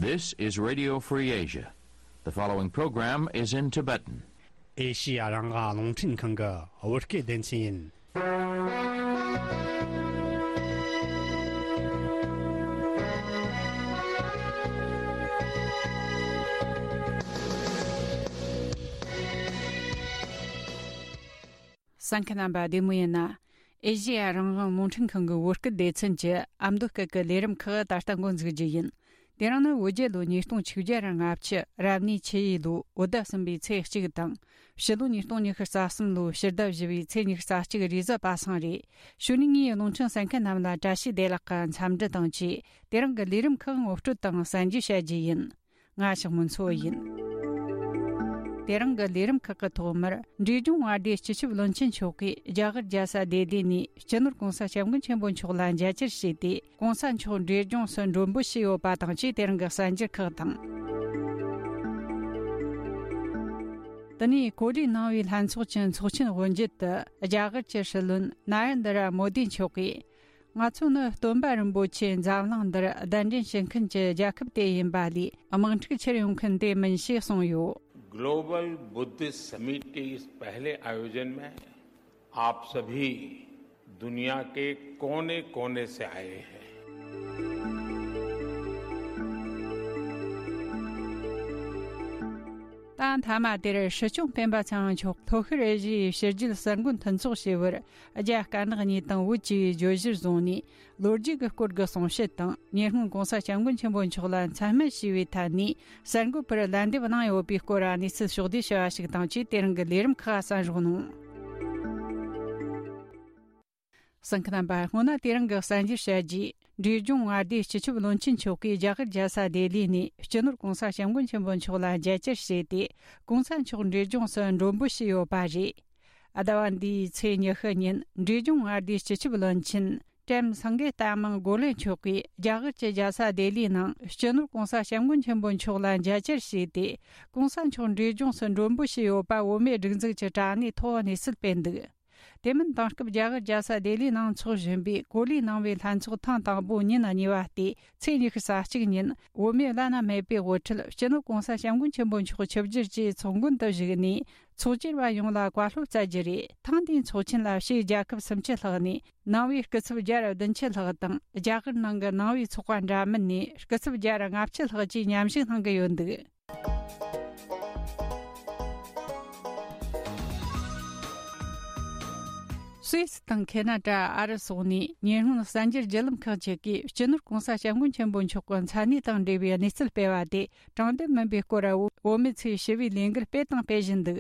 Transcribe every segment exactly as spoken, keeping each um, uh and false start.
This is Radio Free Asia. The following program is in Tibetan. ཨེ་ཤི་ཡ་རང་དབང་རླུང་འཕྲིན་ཁང་གི་བོད་སྐད་སྡེ་ཚན་ཡིན། གསན་མཁན་རྣམ་པ་བདེ་མོ་ཡིན་ན། ཨེ་ཤི་ཡ་རང་དབང་རླུང་འཕྲིན་ཁང་གི་བོད་སྐད་སྡེ་ཚན་གྱི་ཨ་མདོ་སྐད་ཀྱི་ལས་རིམ་ཁག་ད་ལྟ་འགོ་འཛུགས་རྒྱུ་ཡིན། དེ་རིང་ནི་བོད་རྒྱལ་ལོ་ཉིས་སྟོང་ཆིག་བརྒྱ་ར་ལྔ་བཅུ་རབ་གནས་ཆུ་ཡོས་ལོའི་བོད་ཟླ་གསུམ་པའི་ཚེས་གཅིག་དང་། ཕྱི་ལོ་ཉིས་སྟོང་ཉི་ཤུ་རྩ་གསུམ་ལོའི་ཕྱི་ཟླ་བཞི་པའི་ཚེས་ཉི་ཤུ་རྩ་གཅིག་རེས་གཟའ་པ་སངས་རེད། གཞུག་ནས་ངས་རླུང་འཕྲིན་གསན་མཁན་རྣམས་ལ་བཀྲ་ཤིས་བདེ་ལེགས་ཀྱི་འཚམས་འདྲི་དང་བཅས། དེ་རིང་གི་ལས་རིམ་ཁག་ངོ་སྤྲོད་དང་གསན་རྒྱུ་བྱ་རྒྱུ་ཡིན། ང་ཞག་མུན་མཚོ་ཡིན། དེ་རིང་གི་ལས་རིམ་ཁག་གི་ཐོག་མར། འབྲས་ལྗོངས་མངའ་སྡེའི་སྤྱི་ཁྱབ་བློན་ཆེན་མཆོག་གིས་རྒྱ་གར་རྒྱལ་ས་ལྡི་ལི་ནས་སྤྱི་ནོར་༸གོང་ས་༸སྐྱབས་མགོན་ཆེན་པོ་མཆོག་ལ་མཇལ་བཅར་བྱས་ཏེ། ༸གོང་ས་མཆོག་འབྲས་ལྗོངས་སུ་མགྲོན་འབོད་བྱས་ཡོད་པ་དང་བཅས། དེ་རིང་གི་གསར་འགྱུར་ཁག་དང་། དེ་ནས་ཀོ་ལི་ནང་པའི་ལྷན་ཚོགས་ཀྱི་ཚོགས་ཆེན་དབུ་འབྱེད་དུ། རྒྱ་གར་གྱི་སྲིད་བློན་ན་རེན་དྲ་མོ་དི་མཆོག་གིས། ང་ཚོ་ནི་སྟོན་པ་རིན་པོ་ཆེ་འཛམ་གླིང་འདིར་གདན་འདྲེན་བྱེད་མཁན་གྱི་རྒྱལ་ཁབ་དེ་ཡིན་པ་ལས། དམག་འཁྲུག་ཆེར་ཡོང་མཁན་དེ་མིན་ཞེས་གསུངས་ཡོད། Global Buddhist Summit के इस पहले आयोजन में आप सभी दुनिया के कोने-कोने से आए हैं। ད་མཐའ་མ་དེར་སྲིད་སྐྱོང་སྤེན་པ་ཚེ་རིང་མཆོག་ལྷོ་ཤར་ཨེ་ཤི་ཡའི་ཕྱི་རྒྱལ་གསར་འགོད་མཐུན་ཚོགས་ཞེས་པར། རྒྱ་དཀར་ནག་གཉིས་དང་བོད་ཅེས་པའི་བརྗོད་གཞིར་བཟུང་ནས། ལོ་རྒྱུས་ཀྱི་སྐོར་གྱི་གསུང་བཤད་དང་། ཉེ་སྔོན་༸གོང་ས་༸སྐྱབས་མགོན་ཆེན་པོ་མཆོག་ལ་མཚན་སྨད་ཞུས་པའི་ཐད་ནས། གསར་འགོད་པར་ལན་འདེབས་གནང་ཡོད་པའི་སྐོར་གནས་ཚུལ་ཕྱོགས་བསྡུས་བྱ་བ་ཞིག་དང་བཅས། དེ་རིང་གི་ལས་རིམ་ཁག་གསན་རོགས་གནང་། གསན་མཁན་རྣམ་པ། སྔོན་ན་དེ་རིང་གི་གསར་འགྱུར་བཤད་རྗེས། འབྲས་ལྗོངས་མངའ་སྡེའི་སྤྱི་ཁྱབ་བློན་ཆེན་མཆོག་གིས་རྒྱ་གར་རྒྱལ་ས་ལྡི་ལི་ནས་སྤྱི་ནོར་༸གོང་ས་༸སྐྱབས་མགོན་ཆེན་པོ་མཆོག་ལ་མཇལ་བཅར་བྱས་ཏེ། ༸གོང་ས་མཆོག་འབྲས་ལྗོངས་སུ་མགྲོན་འབོད་བྱས་ཡོད་པ་རེད། ཟླ་བ་འདིའི་ཚེས་ཉི་ཤུ་ཉིན་འབྲས་ལྗོངས་མངའ་སྡེའི་སྤྱི་ཁྱབ་བློན་ཆེན་ཀྲེམ་སངྒེ་ཏ་མང་གོ་ལེ་མཆོག་གིས་རྒྱ་གར་གྱི་རྒྱལ་ས་ལྡི་ལིའི་ནང་སྤྱི་ནོར་༸གོང་ས་༸སྐྱབས་མགོན་ཆེན་པོ་མཆོག་ལ་མཇལ་བཅར་བྱས་ཏེ། ༸གོང་ས་མཆོག་འབྲས་ལྗོངས་སུ་མགྲོན་འབོད་བྱས་ཡོད་པ་བོད་མིའི་སྒྲིག་འཛུགས་ཀྱི་དྲ་གནས་ཐོག་གནས་ཚུལ་སྤེལ་འདུག་དེ་མིན། དེང་སྐབས་རྒྱ་གར་རྒྱལ་ས་ལྡི་ལིའི་ནང་འཚོགས་བཞིན་པའི་ཀོ་ལི་ནང་པའི་ལྷན་ཚོགས་ཐེངས་དང་པོ་ཉིན་གཉིས་པ་སྟེ། ཚེས་ཉི་ཤུ་རྩ་གཅིག་ཉིན་བོད་མིའི་བླ་ན་མེད་པའི་དབུ་ཁྲིད་སྤྱི་ནོར་༸གོང་ས་༸སྐྱབས་མགོན་ཆེན་པོ་མཆོག་ཆིབས་བསྒྱུར་གྱིས་ཚོགས་མགོན་དུ་བཞུགས་ནས། ཚོགས་བཅར་བ་ཡོངས་ལ་བཀའ་སློབ་སྩལ་རྒྱུ་རེད། ཐེངས་འདིའི་ཚོགས་ཆེན་ལ་ཕྱིའི་རྒྱལ་ཁབ་སུམ་ཅུ་ལྷག་ནས་ནང་པའི་སྐུ་ཚབ་བརྒྱ་དང་བདུན་ཅུ་ལྷག་དང་། རྒྱ་གར་ནང་གི་ནང་པའི་ཚོགས་པ་འདྲ་མིན་ནས་སྐུ་ཚབ་བརྒྱ་དང་ལྔ་བཅུ་ལྷག་བཅས་མཉམ་ཞུགས་གནང་གི་ཡོད་འདུག་སུད་སི་དང་ཁེ་ན་ཌ། ཨ་རི་སོགས་ནས་ཉེ་སྔོན་གསར་འགྱུར་བརྒྱུད་ལམ་ཁག་ཅིག་གིས་སྤྱི་ནོར་༸གོང་ས་༸སྐྱབས་མགོན་ཆེན་པོ་མཆོག་གི་མཚན་གནས་དང་འབྲེལ་བའི་གནས་ཚུལ་སྤེལ་བ་དེ་དྲང་བདེན་མིན་པའི་སྐོར། བོད་མི་ཚོས་ཞི་བའི་ལས་འགུལ་སྤེལ་དང་སྤེལ་བཞིན་འདུག་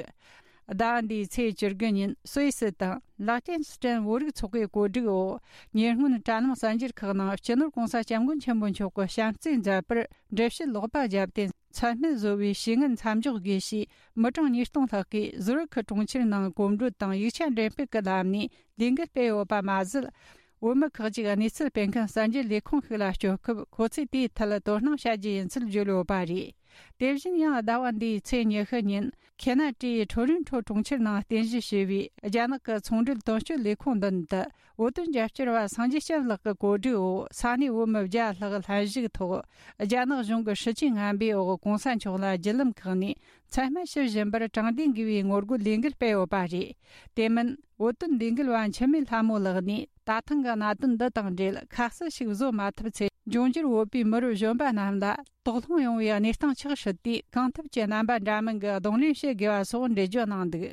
ཟླ་བ་འདིའི་ཚེས་བཅུ་དགུ་ཉིན་སུད་སི་དང་ལག་ཅན་སི་ཏན་བོད་རིགས་ཚོགས་པའི་གོ་སྒྲིག་འོག་ཉེ་སྔོན་དྲ་ལམ་གསར་འགྱུར་ཁག་ནང་སྤྱི་ནོར་༸གོང་ས་༸སྐྱབས་མགོན་ཆེན་པོ་མཆོག་གི་བྱམས་བརྩེའི་མཛད་པར་འགྲེལ་བཤད་ལོག་པ་བརྒྱབ་སྟེ། མཚན་སྨད་བཟོ་བའི་བྱེད་ངན་མཚམས་འཇོག་དགོས་ཞེས་མི་གྲངས་ཉིས་སྟོང་ལྷག་གིས་ཟུར་ཁུལ་གྲོང་ཁྱེར་ནང་གོམ་བགྲོད་དང་ཡིག་ཆ་འགྲེམས་སྤེལ་གྱི་ལམ་ནས་ལས་འགུལ་སྤེལ་ཡོད་པ་མ་ཟད། བོད་མི་ཁག་ཅིག་གནས་ཚུལ་སྤེལ་མཁན་གསར་འགྱུར་ལས་ཁུངས་ཤིག་ལ་སྐྱོད་སྐབས། ཁོ་ཚོས་དེའི་ཐད་དོ་སྣང་བྱ་རྒྱུ་ཡིན་ཚུལ་བརྗོད་ཡོད་པ་རེད། དེ་བཞིན་ཡང་ཟླ་བ་འདིའི་ཚེས་ཉི་ཤུ་ཉིན་ཁེ་ན་ཌའི་ཁྲོ་རིན་ཁྲོ་གྲོང་ཁྱེར་ནང་རྟེན་གཞི་བྱས་པའི་རྒྱ་ནག་གི་ཚོང་འབྲེལ་དོན་གཅོད་ལས་ཁུངས་མདུན་དུ། བོད་དོན་རྒྱབ་སྐྱོར་བ་སངས་རྒྱས་སྐྱབས་ལགས་ཀྱི་གོ་སྒྲིག་འོག་ས་གནས་བོད་མི་བརྒྱ་ལྷག་ལྷན་ཞུགས་ཐོག་རྒྱ་ནག་གཞུང་གི་སྲིད་ཇུས་ངན་པའི་འོག་༸གོང་ས་མཆོག་ལ་བརྒྱུད་ལམ་ཁག་ནས་མཚན་སྨད་ཞུ་བཞིན་པར་དྲང་བདེན་དགོས་པའི་ངོ་རྒོལ་ལས་འགུལ་སྤེལ་ཡོད་པ་རེད། དེ་མིན། བོད་དོན་ལས་འགུལ་བ་འཆི་མེད་ལྷ་མོ་ལགས་ནས། ད་ཐེངས་ཀྱི་གནད་དོན་འདི་དང་འབྲེལ་ཁ་གསལ་ཞིག་བཟོ་མ་ཐུབ་ཚེ། འབྱུང་འགྱུར་བོད་པའི་མི་རབས་གཞོན་པ་རྣམས་ལ་དོགས་སློང་ཡོང་བའི་གནས་སྟངས་ཆགས་སྲིད་དུས། གང་ཐུབ་ཀྱིས་རྣམ་པ་འདྲ་མིན་གྱི་གདོང་ལེན་བྱེད་དགོས་པ་སོགས་འགྲེལ་བརྗོད་གནང་འདུག་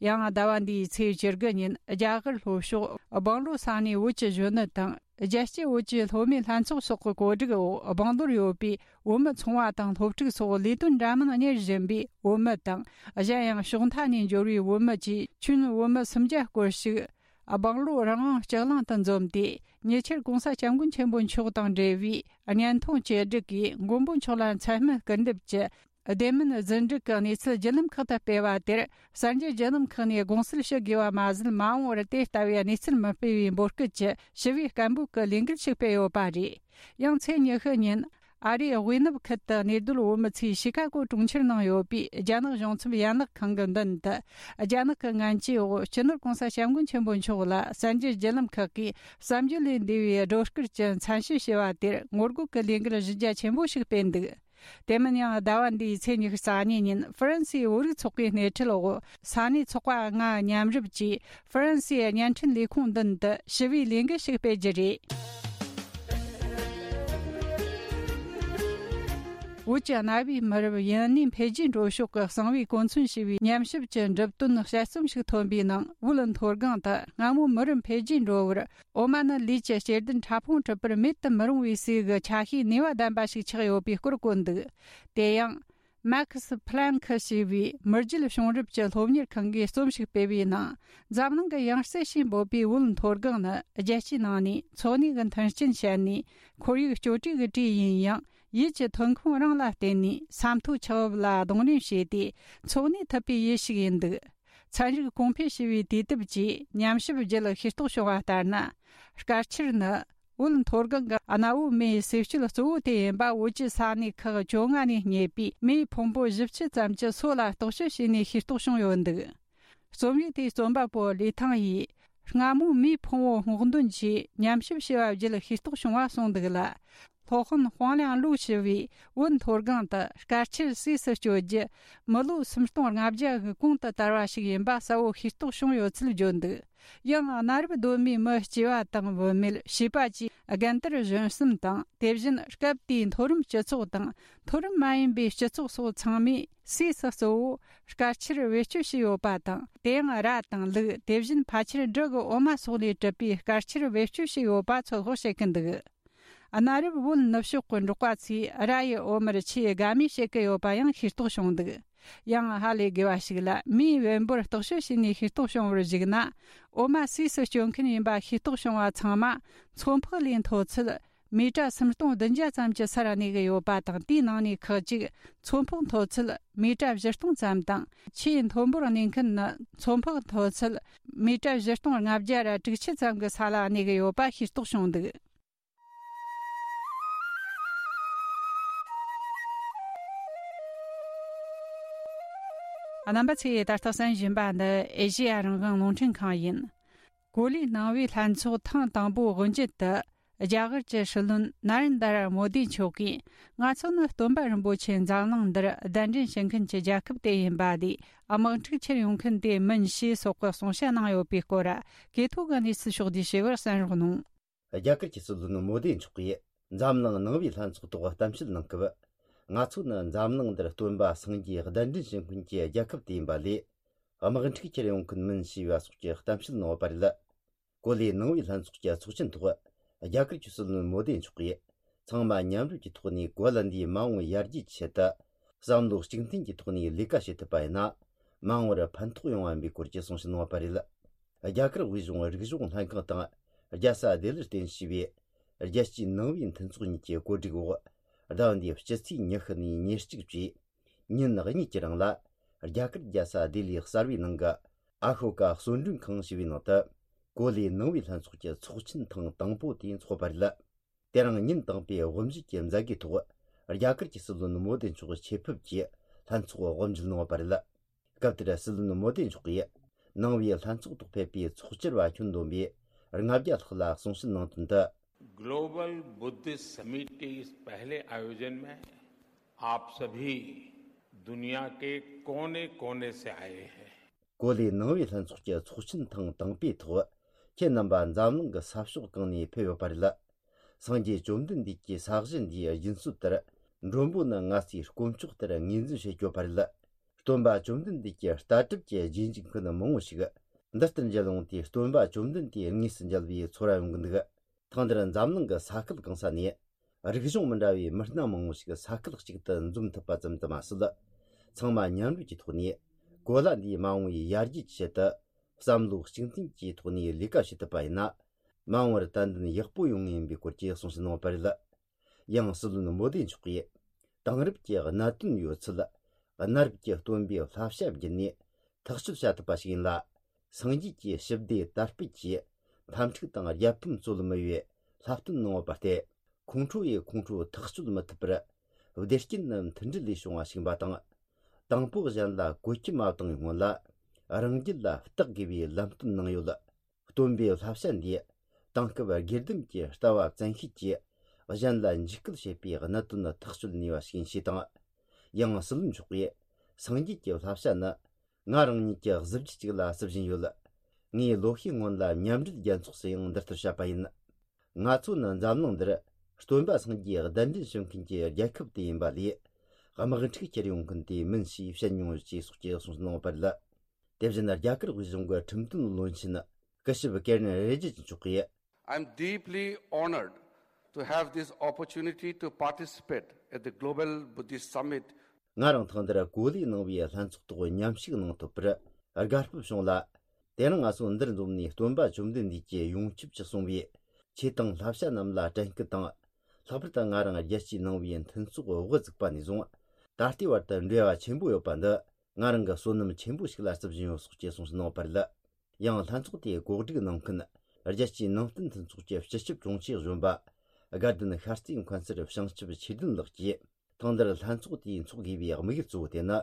ཡང་ཟླ་བ་འདིའི་ཚེས་བཅུ་དགུ་ཉིན་རྒྱ་གར་ལྷོ་ཕྱོགས་སྦང་ལོ་ས་གནས་བོད་ཀྱི་གཞོན་ནུ་དང་། རྒྱལ་སྤྱིའི་བོད་ཀྱི་སློབ་མའི་ལྷན་ཚོགས་སོགས་ཀྱི་གོ་སྒྲིག་འོག་སྦང་ལོར་ཡོད་པའི་བོད་མི་ཚོང་བ་དང་སློབ་ཕྲུག་སོགས་ལས་དོན་འདྲ་མིན་གཉེར་བཞིན་པའི་བོད་མི་དང་། གཞན་ཡང་ཕྱོགས་མཐའ་ནས་འབྱོར་བའི་བོད་མི་བཅས་ཁྱོན་བོད་མི་སུམ་བརྒྱ་སྐོར་ཞིག་སྦང་ལོ་རང་དབང་ལྕགས་གླང་དུ་འཛོམས་ཏེ། ཉེ་ཆར་༸གོང་ས་༸སྐྱབས་མགོན་ཆེན་པོ་མཆོག་དང་འབྲེལ་བའི་བརྙན་ཐུང་བཅོས་སྒྲིག་གིས་མགོན་པོ་མཆོག་ལ་མཚན་སྨད་སྐུར་འདེབས་ཀྱི་བདེན་མིན་རྫུན་སྒྲིག་གི་གནས་ཚུལ་བརྒྱུད་ལམ་ཁག་ཏུ་སྤེལ་བ་དེར། གསར་འགྱུར་བརྒྱུད་ལམ་ཁག་ནས་དགོངས་སེལ་ཞུ་དགོས་པ་མ་ཟད། མ་འོངས་པར་དེ་ལྟ་བུའི་གནས་ཚུལ་མི་སྤེལ་བའི་འབོད་སྐུལ་གྱི་ཞི་བའི་སྐད་འབོད་ཀྱི་ལས་འགུལ་ཞིག་སྤེལ་ཡོད་པ་རེད། ཡང་ཚེས་ཉི་ཤུ་ཉིན། ཨ་རིའི་དབུས་ནུབ་ཁུལ་དུ་གནས་སྡོད་བོད་མི་ཚོས་ཤི་ཀ་གོ་གྲོང་ཁྱེར་ནང་ཡོད་པའི་རྒྱ་ནག་གཞུང་ཚབ་ཡན་ལག་ཁང་གི་མདུན་དུ། རྒྱ་ནག་གི་ངན་ཇུས་འོག་སྤྱི་ནོར་༧གོང་ས་༧སྐྱབས་མགོན་ཆེན་པོ་མཆོག་ལ་གསར་འགྱུར་བརྒྱུད་ལམ་ཁག་གིས་བསམ་བརྗོད་ལས་འདས་པའི་སྒྲོ་སྐུར་གྱི་མཚན་ཞུ་ཞུ་བ་དེར་ངོ་རྒོལ་གྱི་ལས་འགུལ་གཞི་རྒྱ་ཆེན་པོ་ཞིག་སྤེལ་འདུག། དེ་མིན་ཡང་ཟླ་བ་འདིའི་ཚེས་ཉི་ཤུ་རྩ་གཉིས་ཉིན་ཧྥ་རན་སིའི་བོད་རིགས་ཚོགས་པའི་སྣེ་ཁྲིད་འོག་ས་གནས་ཚོགས་པ་ལྔ་མཉམ་རུབ་ཀྱིས་ཧྥ་རན་སིའི་བརྙན་འཕྲིན་ལས་ཁུངས་མདུན་དུ་ཞི་བའི་ལས་འགུལ་ཞིག་སྤེལ་རྒྱུ་རེད། བོད་ཀྱི་གནའ་བོའི་མི་རབས་ཡུན་གནས་འཕེལ་རྒྱས་འགྲོ་ཕྱོགས་ཀྱི་གསང་བའི་གོ་མཚོན་ཞེས་པའི་ཉམས་ཞིབ་ཀྱི་འགྲུབ་དོན་དཔྱད་རྩོམ་ཞིག་ཐོན་པའི་ནང་། བོད་མཐོ་སྒང་དུ་སྔ་མོ་མི་རབས་འཕེལ་རྒྱས་འགྲོ་བར། འོ་མ་ནི་ལུས་ཀྱི་གཅེས་འདུན་ཕྲ་ཕུང་གྲུབ་པར་མེད་དུ་མི་རུང་བའི་ཟས་ཀྱི་ཆ་ཤས་ནུས་པ་ལྡན་པ་ཞིག་ཆགས་ཡོད་པའི་སྐོར་བཀོད་འདུག། དེ་ཡང་། མེག་སི་ཕི་ལན་ཁི་ཞེས་པའི་མི་རྒྱུད་བྱུང་རབས་ཀྱི་སློབ་གཉེར་ཁང་གིས་རྩོམ་ཞིག་སྤེལ་བའི་ནང་། འཛམ་གླིང་གི་ཡང་རྩེ་ཞེས་འབོད་པའི་བོད་མཐོ་སྒང་ནི། རྒྱལ་སྤྱིའི་ནང་ནས་འཚོ་གནས་ཀྱི་མཐུན་རྐྱེན་ཞན་ནས། ཁོར་ཡུག་གཅོད་འབྲེག་གི་གྲས་ཡིན་ཡང་། ཡུལ་གྱི་ཐོན་ཁུངས་རང་ལ་བརྟེན་ནས་ས་མཐོའི་ཆུ་བབ་ལ་གདོང་ལེན་བྱས་ཏེ་འཚོ་གནས་ཐུབ་པའི་ཡུལ་ཞིག་ཡིན་འདུག། ཚན་རིག་གོང་འཕེལ་ཞེས་པའི་དུས་དེབ་ཀྱིས་ཉམས་ཞིབ་བརྒྱུད་ཤེས་རྟོགས་བྱུང་བ་ལྟར་ན། དཀར་ཆིལ་ནི་བོད་མཐོ་སྒང་གི་གནའ་བོའི་མེའི་ཟས་སྤྱོད་གཙོ་བོ་དེ་ཡིན་པ། བོད་ཀྱི་ས་གནས་ཁག་བཅོ་ལྔ་ནས་རྙེད་པའི་མེའི་ཕུང་པོ་བཞི་བཅུ་ཙམ་གྱི་སོ་ལ་རྟོག་དཔྱོད་བྱས་ནས་ཤེས་རྟོགས་བྱུང་ཡོད་འདུག། རྩོམ་ཡིག་དེའི་རྩོམ་པ་པོ་ལི་ཐང་ཡིས། སྔ་མོའི་མེའི་ཕུང་པོ་སྔོག་འདོན་གྱིས་ཉམས་ཞིབ་བྱས་པ་བརྒྱུད་ཤེས་རྟོགས་བྱུང་བ་གསུངས་འདུག་ལ། སློབ་དཔོན་ཧོང་ལིང་ལུའུ་ཞུ་བས། བོད་མཐོ་སྒང་དུ་དཀར་ཆིལ་ཟས་སུ་སྤྱོད་རྒྱུ་མི་ལོ་སུམ་སྟོང་ལྔ་བརྒྱ་གི་གོང་དུ་དར་བ་ཞིག་ཡིན་པ་གསལ་བོ་ཤེས་རྟོགས་བྱུང་ཡོད་ཚུལ་བརྗོད་འདུག། ཡང་གནའ་རབས་གདོད་མའི་མི་སྐྱེས་པ་དང་བུད་མེད་བྱིས་པ་བཅས་རྒན་དར་གཞོན་གསུམ་དང་། དེ་བཞིན་སྐབས་དེའི་མཐོ་རིམ་སྤྱི་ཚོགས་དང་མཐོ་རིམ་མ་ཡིན་པའི་སྤྱི་ཚོགས་སོགས་ཚང་མས་ཟས་སུ་གཙོ་བོ་དཀར་ཆིལ་བེད་སྤྱོད་བྱས་ཡོད་པ་དང་། དེ་ཡང་ར་དང་ལུག། དེ་བཞིན་ཕལ་ཆེར་འབྲུ་གི་འོ་མ་སོགས་ལས་གྲུབ་པའི་དཀར་ཆིལ་བེད་སྤྱོད་བྱས་ཡོད་པ་ཚོད་དཔག་བྱེད་ཀྱི་འདུག། གནའ་རབས་བོད་ནུབ་ཕྱོགས་ཀྱི་འབྲོག་པ་ཚོས་ར་ཡི་འོ་མར་ཆུའི་དགའ་མོས་བྱེད་ཀྱི་ཡོད་པ་ཡང་ཤེས་རྟོགས་བྱུང་འདུག། ཡང་ཧ་ལས་དགོས་པ་ཞིག་ལ། མེའི་བེམ་པོར་རྟོག་དཔྱོད་བྱས་ནས་ཤེས་རྟོགས་བྱུང་བར་གཞིགས་ན། འོ་མ་ཟས་སུ་སྤྱོད་མཁན་ཡིན་པ་ཤེས་རྟོགས་བྱུང་བ་ཚང་མ་མཚོ་འཕགས་ལས་མཐོ་ཚད་མི་ཊར་སུམ་སྟོང་བདུན་བརྒྱ་ཙམ་གྱི་སར་གནས་ཀྱི་ཡོད་པ་དང་། དེའི་ནང་ནས་ཁག་ཅིག་མཚོ་འཕགས་མཐོ་ཚད་མི་ཊར་བཞི་སྟོང་ཙམ་དང་། ཆེས་མཐོན་པོར་གནས་མཁན་ནི་མཚོ་འཕགས་མཐོ་ཚད་མི་ཊར་བཞི་སྟོང་ལྔ་བརྒྱ་ར་དྲུག་ཅུ་ཙམ་གྱི་ས་ལ་གནས་ཀྱི་ཡོད་པ་ཤེས་རྟོགས་བྱུང་འདུག། རྣམ་པ་ཚོས་ད་ལྟ་གསན་བཞིན་པ་འདི་ཨེ་ཤེ་ཡ་རང་དབང་རླུང་འཕྲིན་ཁང་ཡིན། གོ་ལའི་ནང་པའི་ལྷན་ཚོགས་ཐེངས་དང་པོའི་དབུ་འབྱེད་དུ། རྒྱ་གར་གྱི་སྲིད་བློན་ན་རེན་དར་མོ་དི་མཆོག་གིས། ང་ཚོ་ནི་སྟོན་པ་རིན་པོ་ཆེ་འཛམ་གླིང་འདིར་གདན་འདྲེན་བྱེད་མཁན་གྱི་རྒྱལ་ཁབ་དེ་ཡིན་པ་ལས། དམག་འཁྲུག་ཁྱེར་ཡོང་མཁན་དེ་མིན་ཞེས་སོགས་ཀྱི་གསུང་བཤད་གནང་ཡོད་པའི་སྐོར། གོ་ཐོས་ཀྱི་གནས་ཚུལ་ཕྱོགས་བསྡུས་ཞུ་བར་གསན་རོགས་གནང་། རྒྱ་གར་གྱི་སྲིད་བློན་མོ་དི་མཆོག་གིས་འཛམ་གླིང་ནང་པའི་ལྷན་ཚོགས་ཐོག་གཏམ་བཤད་གནང་སྐབས། ང་ཚོ་ནི་འཛམ་གླིང་འདིར་སྟོན་པ་སངས་རྒྱས་གདན་འདྲེན་བྱེད་མཁན་གྱི་རྒྱལ་ཁབ་དེ་ཡིན་པ་ལས། དམག་འཁྲུག་ཁྱེར་ཡོང་མཁན་མིན་ཞེས་པ་སོགས་ཀྱི་གཏམ་བཤད་གནང་བ་རེད། གོ་ལའི་ནང་པའི་ལྷན་ཚོགས་ཀྱི་ཚོགས་ཆེན་ཐོག་རྒྱ་གར་གྱི་སྲིད་བློན་མོ་དི་མཆོག་གིས། ཚང་མ་མཉམ་རུབ་ཀྱི་ཐོག་ནས་གོ་ལ་འདིའི་མ་འོངས་ཡར་རྒྱས་ཀྱི་ཆེད་དུ། བསམ་བློ་གཅིག་མཐུན་གྱི་ཐོག་ནས་ལས་ཀ་བྱེད་ཐུབ་པ་ཡིན་ན། མ་འོངས་པར་ཕན་ཐོགས་ཡོང་བ་ཡིན་པའི་སྐོར་གྱི་གསུང་བཤད་གནང་བ་རེད། རྒྱ་གར་དབུས་གཞུང་རིག་གཞུང་ལྷན་ཁང་དང་། རྒྱལ་ས་ལྡི་ལིར་རྟེན་གཞི་བྱས་པའི། རྒྱལ་སྤྱིའི་ནང་པའི་མཐུན་ཚོགས་གཉིས་ཀྱི་གོ་སྒྲིག་འོག་ཟླ་བ་འདིའི་སྤྱི་ཚེས་ཉི་ཤུ་ནས་ཉེར་གཅིག་བཅས། ཉིན་གཉིས་ཀྱི་རིང་ལ། རྒྱ་གར་རྒྱལ་ས་ལྡི་ལིའི་གསར་བའི་ནང་གི་ཨ་ཤོ་ཀ་གསོལ་མགྲོན་ཁང་ཞེས་པའི་ནང་དུ། གོ་ལའི་ནང་པའི་ལྷན་ཚོགས་ཀྱི་ཚོགས་ཆེན་ཐེངས་དང་པོ་དེ་འཚོགས་པ་རེད། དེ་རིང་ཉིན་དང་པོའི་དབུ་འབྱེད་ཀྱི་མཛད་སྒོའི་ཐོག་རྒྱ་གར་གྱི་སྲིད་བློན་མོ་དི་མཆོག་ཆེད་ཕེབས་ཀྱིས་ལྷན་ཚོགས་དབུ་འབྱེད་གནང་བ་རེད། སྐབས་དེར་སྲིད་བློན་མོ་དི་མཆོག་གིས་ནང་པའི་ལྷན་ཚོགས་ཐོག་ཕེབས་པའི་ཚོགས་བཅར་བ་ཁྱོན་བསྡོམས་པས་ལྔ་བརྒྱ་ལྷག་ལ་གསུང་བཤད་གནང་དོན་དུ། ग्लोबल बुद्धिस्ट समिट के इस पहले आयोजन में आप सभी दुनिया के कोने कोने से आए हैं। གོ་ལའི་ནང་པའི་ལྷན་ཚོགས་ཀྱི་ཚོགས་ཆེན་ཐེངས་དང་པོའི་ཐོག་ཁྱེད་རྣམ་པ་འཛམ་གླིང་གི་ས་ཕྱོགས་གང་ནས་ཕེབས་ཡོད་པ་རེད། སངས་རྒྱས་བཅོམ་ལྡན་འདས་ཀྱི་ས་གཞི་འདིའི་སྦྱིན་སྲོལ་ལྟར། མགྲོན་པོ་ནི་ང་ཚོའི་དཀོན་མཆོག་ལྟར་ངོས་འཛིན་བྱེད་ཀྱི་ཡོད་པ་རེད། སྟོན་པ་བཅོམ་ལྡན་འདས་ཀྱི་ལྟ་གྲུབ་ཀྱི་རྗེས་འཇུག་མཁན་མང་བོ་ཞིག་འདི་ལྟར་མཇལ་འོང་དུས། སྟོན་པ་བཅོམ་ལྡན་འདས་དངོས་སུ་མཇལ་བའི་ཚོར་བ་ཡོང་གི་འདུག། ཐེངས་འདིར་འཛམ་གླིང་གི་ས་ཁུལ་གང་ས་ནས་རིག་གཞུང་མི་འདྲ་བའི་མི་སྣ་མང་བོ་ཞིག་ས་ཁུལ་གཅིག་ཏུ་འཛོམས་ཐུབ་པ་ཙམ་དུ་མ་ཟད། ཚང་མ་མཉམ་རུབ་ཀྱི་ཐོག་ནས་གོ་ལ་འདིའི་མ་འོངས་པའི་ཡར་རྒྱས་ཀྱི་ཆེད་དུ་བསམ་བློ་གཅིག་མཐུན་གྱི་ཐོག་ནས་ལས་ཀ་བྱེད་ཐུབ་པ་ཡིན་ན། མ་འོངས་པར་ཏན་ཏན་ཡག་པོ་ཡོང་ངེས་ཡིན་པའི་སྐོར་གྱི་གསུང་བཤད་གནང་བ་རེད། ཡང་སྲིད་བློན་མོ་དི་མཆོག་གིས། དེང་རབས་ཀྱི་གནད་དོན་ཡོད་ཚད། གནའ་རབས་ཀྱི་སྟོན་པའི་བསླབ་བྱ་བརྒྱུད་ནས་ཐག་གཅོད་བྱ་ཐུབ་པ་ཞིག་ཡིན་ལ། སངས་རྒྱས་ཀྱི་ཞི་བདེ་དར་སྤེལ་གྱི་འཐབ་འཁྲུག་དང་རྒྱལ་ཕམ་རྩོད་མི་བའི་བསླབ་སྟོན་གནང་བ་སྟེ། ཁོང་ཁྲོ་ཡིས་ཁོང་ཁྲོ་ཐག་གཅོད་མི་ཐུབ་པར། བདེ་སྐྱིད་ནི་མཐུན་སྒྲིལ་ལས་བྱུང་བ་ཞིག་ཡིན་པ་དང་། དང་པོ་གཞན་ལ་བཀོལ་སྤྱོད་མ་བཏང་བའི་སྔོན་ལ། རང་རྒྱུད་ལ་བརྟག་དགོས་པའི་ལམ་སྟོན་གནང་ཡོད། སྟོན་པའི་བསླབ་བྱ་འདིས། དེང་སྐབས་དགེ་ལྡན་གྱི་ལྟ་བ་བཙན་ཤེད་ཀྱིས་གཞན་ལ་འཇིགས་སྐུལ་བྱེད་པའི་གནད་དོན་ཐག་གཅོད་ནུས་པ་ཞིག་ཡིན་ཞེས་དང་། ཡང་སྲིད་བློན་མཆོག་གིས། སངས་རྒྱས་ཀྱི་བསླབ་བྱ་ནི། ང་རང་ཉིད་ཀྱི་གཟི་བརྗིད་ཅིག་ལ་བརྩི་བཞིན་ཡོད། ངས་ལོ་ཤས་སྔོན་ལ་མཉམ་འབྲེལ་རྒྱལ་ཚོགས་སུ་ཡང་འདི་ལྟར་བཤད་པ་ཡིན། ང་ཚོ་ནི་འཛམ་གླིང་འདིར་སྟོན་པ་སངས་རྒྱས་གདན་འདྲེན་ཞུ་མཁན་གྱི་རྒྱལ་ཁབ་དེ་ཡིན་པ་ལས། དམག་འཁྲུག་ཁྱེར་ཡོང་མཁན་དེ་མིན་ཞེས་བཤད་མྱོང་ཡོད་ཅེས་སོགས་ཀྱི་གསུངས་གནང་བ་རེད། དེ་བཞིན་རྒྱ་གར་དབུས་གཞུང་གི་ཁྲིམས་དོན་བློན་ཆེན་སྐུ་ཞབས་ཀེ་རན་རི་ཇི་ཇི་མཆོག་གིས། I'm deeply honored to have this opportunity to participate at the Global Buddhist Summit. ང་རང་ཐེངས་འདིར་གོ་ལའི་ནང་པའི་ལྷན་ཚོགས་ཐོག་མཉམ་ཞུགས་གནང་ཐུབ་པར་དགའ་སྤོབས་བྱུང་ལ། དེ་རིང་ང་ཚོ་འདིར་འཛོམས་ནས་སྟོན་པ་བཅོམ་ལྡན་འདས་ཀྱི་ཡོངས་ཁྱབ་ཀྱི་གསུང་བའི་ཆོས་དང་བསླབ་བྱ་རྣམས་ལ་དྲན་སྐུལ་དང་། ལྷག་པར་དུ་ང་རང་རྒྱལ་སྤྱིའི་ནང་པའི་མཐུན་ཚོགས་དབུ་བཙུགས་པ་ནས་བཟུང་། ད་ལྟའི་བར་དུ་འབྲེལ་བ་ཆེན་པོ་ཡོད་པ་འདི། ང་རང་གི་བསོད་ནམས་ཆེན་པོ་ཞིག་ལ་བརྩི་བཞིན་ཡོད་སོགས་ཀྱི་གསུངས་གནང་བ་རེད། ཡང་ལྷན་ཚོགས་དེའི་གོ་སྒྲིག་གནང་མཁན། རྒྱལ་སྤྱིའི་ནང་བསྟན་མཐུན་ཚོགས་ཀྱི་སྤྱི་ཁྱབ་དྲུང་ཆེ་གཞོན་པ། དགའ་ལྡན་ཤར་རྩེའི་མཁན་ཟུར་བྱང་ཆུབ་ཆོས་ལྡན་ལགས་ཀྱིས། ཐེངས་འདིར་ལྷན་ཚོགས་དེའི་འཚོགས་དགོས་པའི་དམིགས་ཡུལ་གཙོ་བོ་དེ་ནི།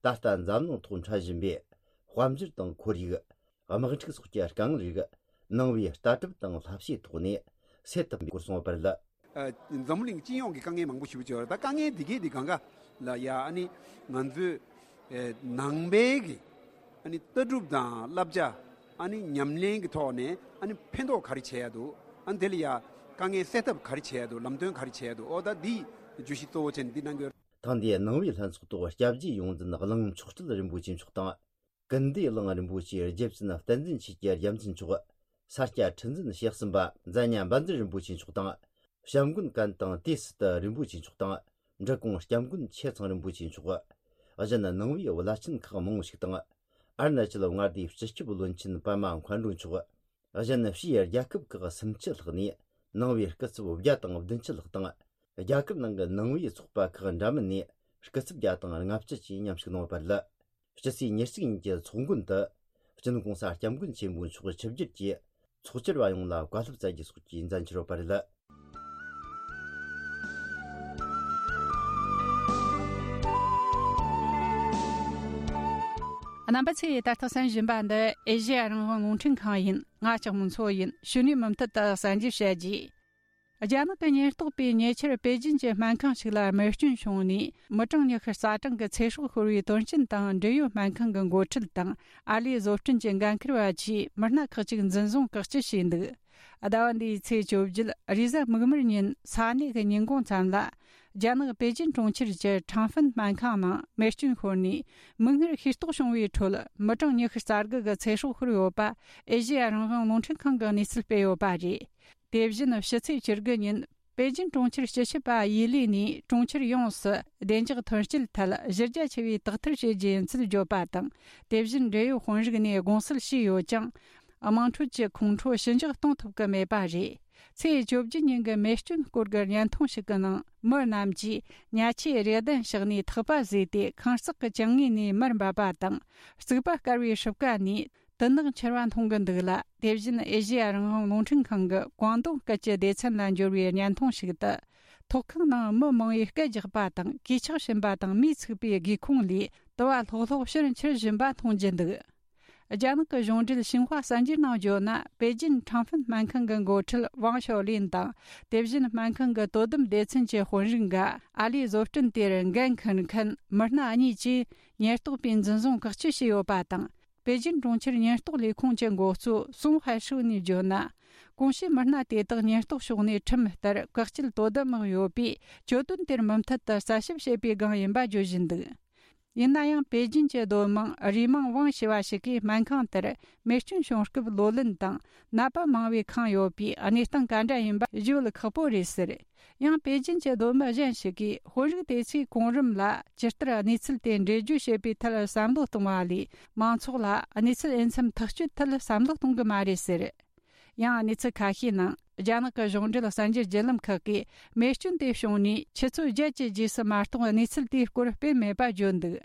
ད་ལྟ་འཛམ་གླིང་ཐོག་འཕྲད་བཞིན་པའི་དཔལ་འབྱོར་དང་ཁོར་ཡུག་དམག་འཁྲུག་སོགས་ཀྱི་དཀའ་ངལ་རིགས་ནང་པའི་ལྟ་གྲུབ་དང་བསླབ་བྱའི་ཐོག་ནས་སེལ་ཐུབ་པའི་སྐོར་གསུངས་པ་རེད། ཨ། འཛམ་བུ་གླིང་སྤྱི་ཡོངས་ཀྱི་དཀའ་ངལ་མང་པོ་ཞིག་ཡོད་རེད། ད་དཀའ་ངལ་འདི་གས་འདི་གང་ག་ལ་ཡ་ཨ་ནི་ང་ཚོས་ཨེ་ནང་པའི་གི་ཨ་ནི་ལྟ་གྲུབ་དང་བསླབ་བྱ། ཨ་ནི་ཉམས་ལེན་གྱི་ཐོག་ནས་ཨ་ནི་ཕན་ཐོགས་ག་རེ་བྱེད་ཡ་འདུག་ཨ་ནི་དེ་ལ་ཡ་དཀའ་ངལ་སེལ་ཐབས་ག་རེ་བྱེད་ཡ་འདུག་ལམ་སྟོན་ག་རེ་བྱེད་ཡ་འདུག་ཨོ་ད་འདི་བརྗོད་གཞི་གཙོ་བོ་བྱས་ནས་འདི་གནང་གི་ཡོད། ཐེངས་འདིའི་ནང་པའི་ལྷན་ཚོགས་ཐོག་སྐྱབས་རྗེ་ཡོངས་འཛིན་གླིང་མཆོག་སྤྲུལ་རིན་པོ་ཆེ་མཆོག་དང་། ཀུན་བདེ་གླིང་རིན་པོ་ཆེའི་རྗེ་བཙུན་བསྟན་འཛིན་ཆོས་ཀྱི་རྒྱལ་མཚན་མཆོག་ས་སྐྱ་ཁྲི་འཛིན་ཞེ་གསུམ་པ་མཛད་ཉ་འབའ་འཛིན་རིན་པོ་ཆེ་མཆོག་དང་། བྱམས་མགོན་ཀན་དང་ཏེ་སི་ཏི་རིན་པོ་ཆེ་མཆོག་དང་། འབྲི་གུང་སྐྱབས་མགོན་ཆེ་ཚང་རིན་པོ་ཆེ་མཆོག་གཞན་ནང་པའི་བླ་ཆེན་ཁག་མང་པོ་ཞིག་དང་། ཨ་རུ་ན་ཅལ་མངའ་སྡེའི་སྤྱི་ཁྱབ་བློན་ཆེན་པདྨ་མཁའ་འགྲོ་མཆོག་གཞན་ཕྱིའི་རྒྱལ་ཁབ་ཁག་སུམ་ཅུ་ལྷག་ནས་ནང་པའི་སྐུ་ཚབ་བརྒྱ་དང་བདུན་ཅུ་ལྷག་དང་། རྒྱ་གར་ནང་གི་ནང་པའི་ཚོགས་པ་ཁག་འདྲ་མིན་ནས་སྐུ་ཚབ་བརྒྱ་དང་ལྔ་བཅུ་བཅས་མཉམ་ཞུགས་གནང་བ་རེད། སྤྱི་ཚེས་ཉེར་གཅིག་ཉིན་གྱི་ཚོགས་མགོན་དུ། སྤྱི་ནོར་༸གོང་ས་༸སྐྱབས་མགོན་ཆེན་པོ་མཆོག་ཆིབས་བསྒྱུར་གྱིས་ཚོགས་བཅར་བ་ཡོངས་ལ་བཀའ་སློབ་སྩལ་རྒྱུ་སོགས་ཀྱི་མཛད་འཆར་ཡོད་པ་རེད། རྣམ་པ་ཚོས་ད་ལྟ་གསན་བཞིན་པ་འདི་ཨེ་ཤེ་ཡ་རང་དབང་རླུང་འཕྲིན་ཁང་ཡིན། ང་ལྕགས་མོ་མཚོ་ཡིན། གཞུག་ནས་མུ་མཐུད་དུ་གསན་རྒྱུ་བྱ་རྒྱུ། རྒྱ་ནག་གི་ཉེན་རྟོག་པས་ཉེ་ཆར་པེ་ཅིན་གྱི་སྨན་ཁང་ཞིག་ལ་རྨས་སྐྱོན་བྱུང་ནས་མི་གྲངས་ཉི་ཤུ་རྩ་གྲངས་ཀྱི་ཚེ་སྲོག་ཤོར་བའི་དོན་རྐྱེན་དང་། འབྲེལ་ཡོད་སྨན་ཁང་གི་འགོ་ཁྲིད་དང་ཨ་ལས་བཟོ་སྐྲུན་གྱི་འགན་འཁུར་བ་བཅས་མི་སྣ་ཁག་ཅིག་འཛིན་བཟུང་བཀག་སྐྱིལ་བྱས་འདུག་ཟླ་བ་འདིའི་ཚེས་བཅོ་བརྒྱད་རེས་གཟའ་མིག་དམར་ཉིན་ས་གནས་ཀྱི་ཉིན་གུང་ཙམ་ལ། རྒྱ་ནག་པེ་ཅིན་གྲོང་ཁྱེར་གྱི་ཁྲང་ཧྥིན་སྨན་ཁང་ནང་རྨས་སྐྱོན་ཤོར་ནས་མིག་སྔར་ཤེས་རྟོགས་བྱུང་བའི་ཁྲོད་མི་གྲངས་ཉི་ཤུ་རྩ་དགུ་གི་ཚེ་སྲོག་ཤོར་ཡོད་པ་ཨེ་ཤེ་ཡ་རང་དབང་རླུང་འཕྲིན་ཁང་གིས་གནས་ཚུལ་སྤེལ་ཡོད་པ་རེད། དེ་བཞིན་ཕྱི་ཚེས་བཅུ་དགུ་ཉིན་པེ་ཅིན་གྲོང་ཁྱེར་སྤྱི་ཁྱབ་པ་ཡི་ལི་ནས་གྲོང་ཁྱེར་ཡོངས་སུ་བདེ་འཇགས་ཐོན་སྐྱེད་ཐད་གཞི་རྒྱ་ཆེ་བའི་དག་ཐེར་བྱེད་རྒྱུ་ཡིན་ཚུལ་བརྗོད་པ་དང་། དེ་བཞིན་འབྲེལ་ཡོད་དཔོན་རིགས་ནས་དགོངས་སེལ་ཞུས་ཡོད་ཀྱང་། དམངས་ཁྲོད་ཀྱི་ཁོང་ཁྲོ་ཞི་འཇགས་གཏོང་ཐུབ་ཀྱི་མེད་པ་རེད། ཚེས་བཅོ་བརྒྱད་ཉིན་གྱི་རྨས་སྐྱོན་སྐོར་གྱི་བརྙན་ཐུང་ཞིག་གི་ནང་། མི་རྣམས་ཀྱིས་ཉལ་ཆས་རེ་གདན་བཞག་ནས་ཐག་པ་བཟོས་ཏེ་ཁང་བརྩེགས་ཀྱི་གྱང་ངོས་ནས་མར་འབབ་པ་དང་། རྩིག་པ་བསྐལ་བའི་སྲུབས་ཀ་ནས་དུད་ནག་འཕྱུར་བ་མཐོང་གི་འདུག་ལ། དེ་བཞིན་ཨེ་ཤེ་ཡ་རང་དབང་རླུང་འཕྲིན་ཁང་གི་ཀོང་ཏུང་སྐད་ཀྱི་སྡེ་ཚན་ལ་འབྱོར་བའི་བརྙན་ཐུང་ཞིག་ཏུ། ཐོག་ཁང་ནང་མི་མང་བོས་སྐད་རྒྱག་པ་དང་། གོས་ཆག་བྱིན་པ་དང་། མིས་ཚིག་པའི་སྒེའུ་ཁུང་ལས་དུ་བ་ལྷོག་ལྷོག་ཕྱིར་འཕྱུར་བཞིན་པ་མཐོང་རྒྱུ་འདུག་རྒྱ་ནག་གི་གཞུང་འབྲེལ་ཤིན་ཧྭ་གསར་འགྱུར་ནང་བརྗོད་ན། པེ་ཅིན་ཁྲང་ཧྥིན་སྨན་ཁང་གི་འགོ་ཁྲིད་ཝང་ཞའོ་ལིན་དང་། དེ་བཞིན་སྨན་ཁང་གི་དོ་དམ་སྡེ་ཚན་གྱི་དཔོན་རིགས་འགའ། ཨ་ལས་བཟོ་སྐྲུན་དེར་འགན་འཁུར་མཁན་མི་སྣ་གཉིས་ཀྱིས་ཉེན་རྟོག་པས་འཛིན་བཟུང་བཀག་སྐྱིལ་བྱས་ཡོད་པ་དང་། པེ་ཅིན་གྲོང་ཁྱེར་ཉེན་རྟོག་ལས་ཁུངས་ཀྱི་འགོ་གཙོ་སུང་ཧའེ་ཧྲུའུ་ནས་བརྗོད་ན། གོང་ཞུས་མི་སྣ་དེ་དག་ཉེན་རྟོག་ཕྱོགས་ནས་ཁྲིམས་ལྟར་བཀག་སྐྱིལ་དོ་དམ་དམག་ཡོད་པས། གྱོད་དོན་དེར་མུ་མཐུད་དུ་རྩད་ཞིབ་བྱེད་པའི་སྒང་ཡིན་པ་བརྗོད་བཞིན་འདུག་ཡིན་ན་ཡང་པེ་ཅིན་གྱི་སྡོད་དམངས་རུས་མིང་ཝང་ཞེས་པ་ཞིག་གིས་སྨན་ཁང་དེར་རྨས་སྐྱོན་བྱུང་སྐབས་ལོ་ལོན་དང་ནད་པ་མང་བས་ཁེངས་ཡོད་པས་གནས་སྟངས་ག་འདྲ་ཡིན་པ་བརྗོད་ཁག་པོ་རེད་ཟེར། ཡང་པེ་ཅིན་གྱི་སྡོད་མི་གཞན་ཞིག་གིས་དཔོན་རིགས་དེ་ཚོས་གོང་རིམ་ལ་ཇི་ལྟར་གནས་ཚུལ་དེ་འགྲེལ་བརྗོད་བྱེད་པའི་ཐད་བསམ་བློ་གཏོང་བ་ལས་མང་ཚོགས་ལ་གནས་ཚུལ་འོས་འཚམ་ཐག་གཅོད་ཐད་བསམ་བློ་གཏོང་གི་མ་རེད་ཟེར། ཡང་གནས་ཚུལ་ཁ་ཤས་ནང་རྒྱ་ནག་གི་གཞུང་འབྲེལ་གསར་འགྱུར་བརྒྱུད་ལམ་ཁག་གིས་རྨས་སྐྱོན་དེ་བྱུང་ནས་ཆུ་ཚོད་བརྒྱད་ཀྱི་རྗེས་སུ་མ་གཏོགས་གནས་ཚུལ་དེའི་སྐོར་སྤེལ་མེད་པ་བརྗོད་འདུག་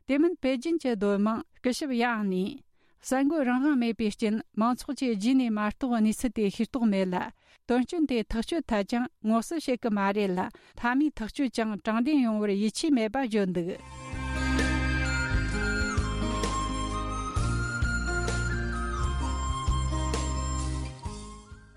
དེ་མིན་པེ་ཅིན་གྱི་སྡོད་དམངས་སྐུ་ཞབས་ཡང་ནས་ གསར་འགོད་རང་དབང་མེད་པའི་རྐྱེན། མང་ཚོགས་ཀྱིས་རྗེས་ནས་མ་གཏོགས་གནས་ཚུལ་དེ་ཤེས་རྟོགས་མེད་ལ། དོན་རྐྱེན་དེ་ཐག་གཅོད་ཐད་ཀྱང་ངོ་སེལ་བྱེད་ཀྱི་མ་རེད་ལ། མཐའ་མའི་ཐག་གཅོད་ཀྱང་དྲང་བདེན་ཡོང་བར་ཡིད་ཆེས་མེད་པ་བརྗོད་འདུག།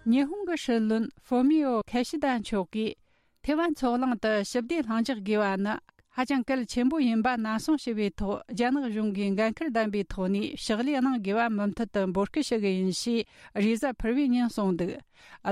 ཉི་ཧོང་གི་སྲིད་བློན་ཧྥོ་མི་ཡོ་ཁ་ཤི་ད་མཆོག་གིས། ཐེ་ཝན་མཚོ་གླིང་དུ་ཞི་བདེ་ལྷིང་འཇགས་དགོས་པ་ནི་ཧ་ཅང་གལ་ཆེན་པོ་ཡིན་པ་ནན་གསུངས་ཞུས་པའི་ཐོག། རྒྱ་ནག་གཞུང་གིས་འགན་ཁུར་ལྡན་པའི་ཐོག་ནས་ཕྱག་ལས་གནང་དགོས་པ་མུ་མཐུད་དུ་འབོད་སྐུལ་ཞུ་གི་ཡིན་ཞེས་རེས་གཟའ་ཕུར་བུའི་ཉིན་གསུངས་འདུག།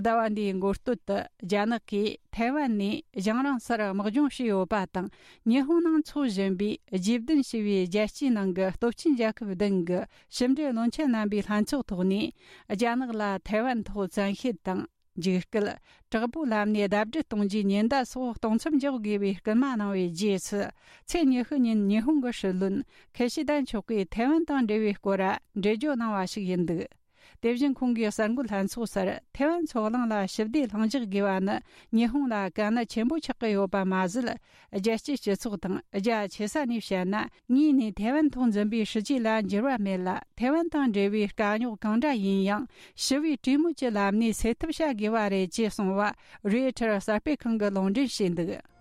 ཟླ་བ་འདིའི་འགོ་སྟོད་དུ་རྒྱ་ནག་གིས་ཐེ་ཝན་ནས་རྒྱང་རིང་སར་དམག་སྦྱོང་བྱས་ཡོད་པ་དང་། ཉི་ཧོང་ནང་འཚོགས་བཞིན་པའི་རྗེས་བདུན་ཞེས་པའི་རྒྱལ་སྤྱིའི་ནང་གི་སྟོབས་ཆེན་རྒྱལ་ཁབ་བདུན་གྱི་ཕྱི་འབྲེལ་བློན་ཆེན་རྣམ་པའི་ལྷན་ཚོགས་ཐོག་ནས། རྒྱ་ནག་ལ་ཐེ་ཝན་ཐོག་བཙན་ཤེད་དང་། འཇིགས་སྐུལ། དྲག་པོའི་ལམ་ནས་ལྡབ་བརྒྱད་གཏོང་རྒྱུའི་ཉེན་བརྡ་སོགས་གཏོང་མཚམས་འཇོག་དགོས་པའི་སྐུལ་མ་གནང་བའི་རྗེས་སུ། ཚེས་ཉི་ཤུ་ཉིན་ཉི་ཧོང་གི་སྲིད་བློན་ཁི་ཤི་ད་མཆོག་གིས་ཐེ་ཝན་དང་འབྲེལ་བའི་སྐོར། འགྲེལ་བརྗོད་གནང་བ་ཞིག་ཡིན་འདུག། དེ་བཞིན་ཁོང་གིས་གསར་འགོད་ལྷན་ཚོགས་སར་ཐེ་ཝན་མཚོ་གླིང་ལ་ཞི་བདེ་ལྷིང་འཇགས་དགོས་པ་ནི་ཉི་ཧོང་ལ་དཀའ་གནད་ཆེན་པོ་ཆགས་ཀྱི་ཡོད་པ་མ་ཟད། རྒྱལ་སྤྱིའི་སྤྱི་ཚོགས་དང་རྒྱ་ཆེ་ས་ནས་བཤད་ན། ངོས་ནས་ཐེ་ཝན་ཐོག་འཛིན་པའི་སྲིད་ཇུས་ལ་འགྱུར་བ་མེད་ལ། ཐེ་ཝན་དང་འབྲེལ་བའི་དཀའ་རྙོག་གང་འདྲ་ཡིན་ཡང་ཞི་བའི་གྲོས་མོལ་གྱི་ལམ་ནས་སེལ་ཐབས་བྱ་དགོས་པ་རེད་ཅེས་གསུངས་པ་རོའི་ཊར་གསར་སྤེལ་ཁང་གིས་ལུང་འདྲེན་བྱས་འདུག།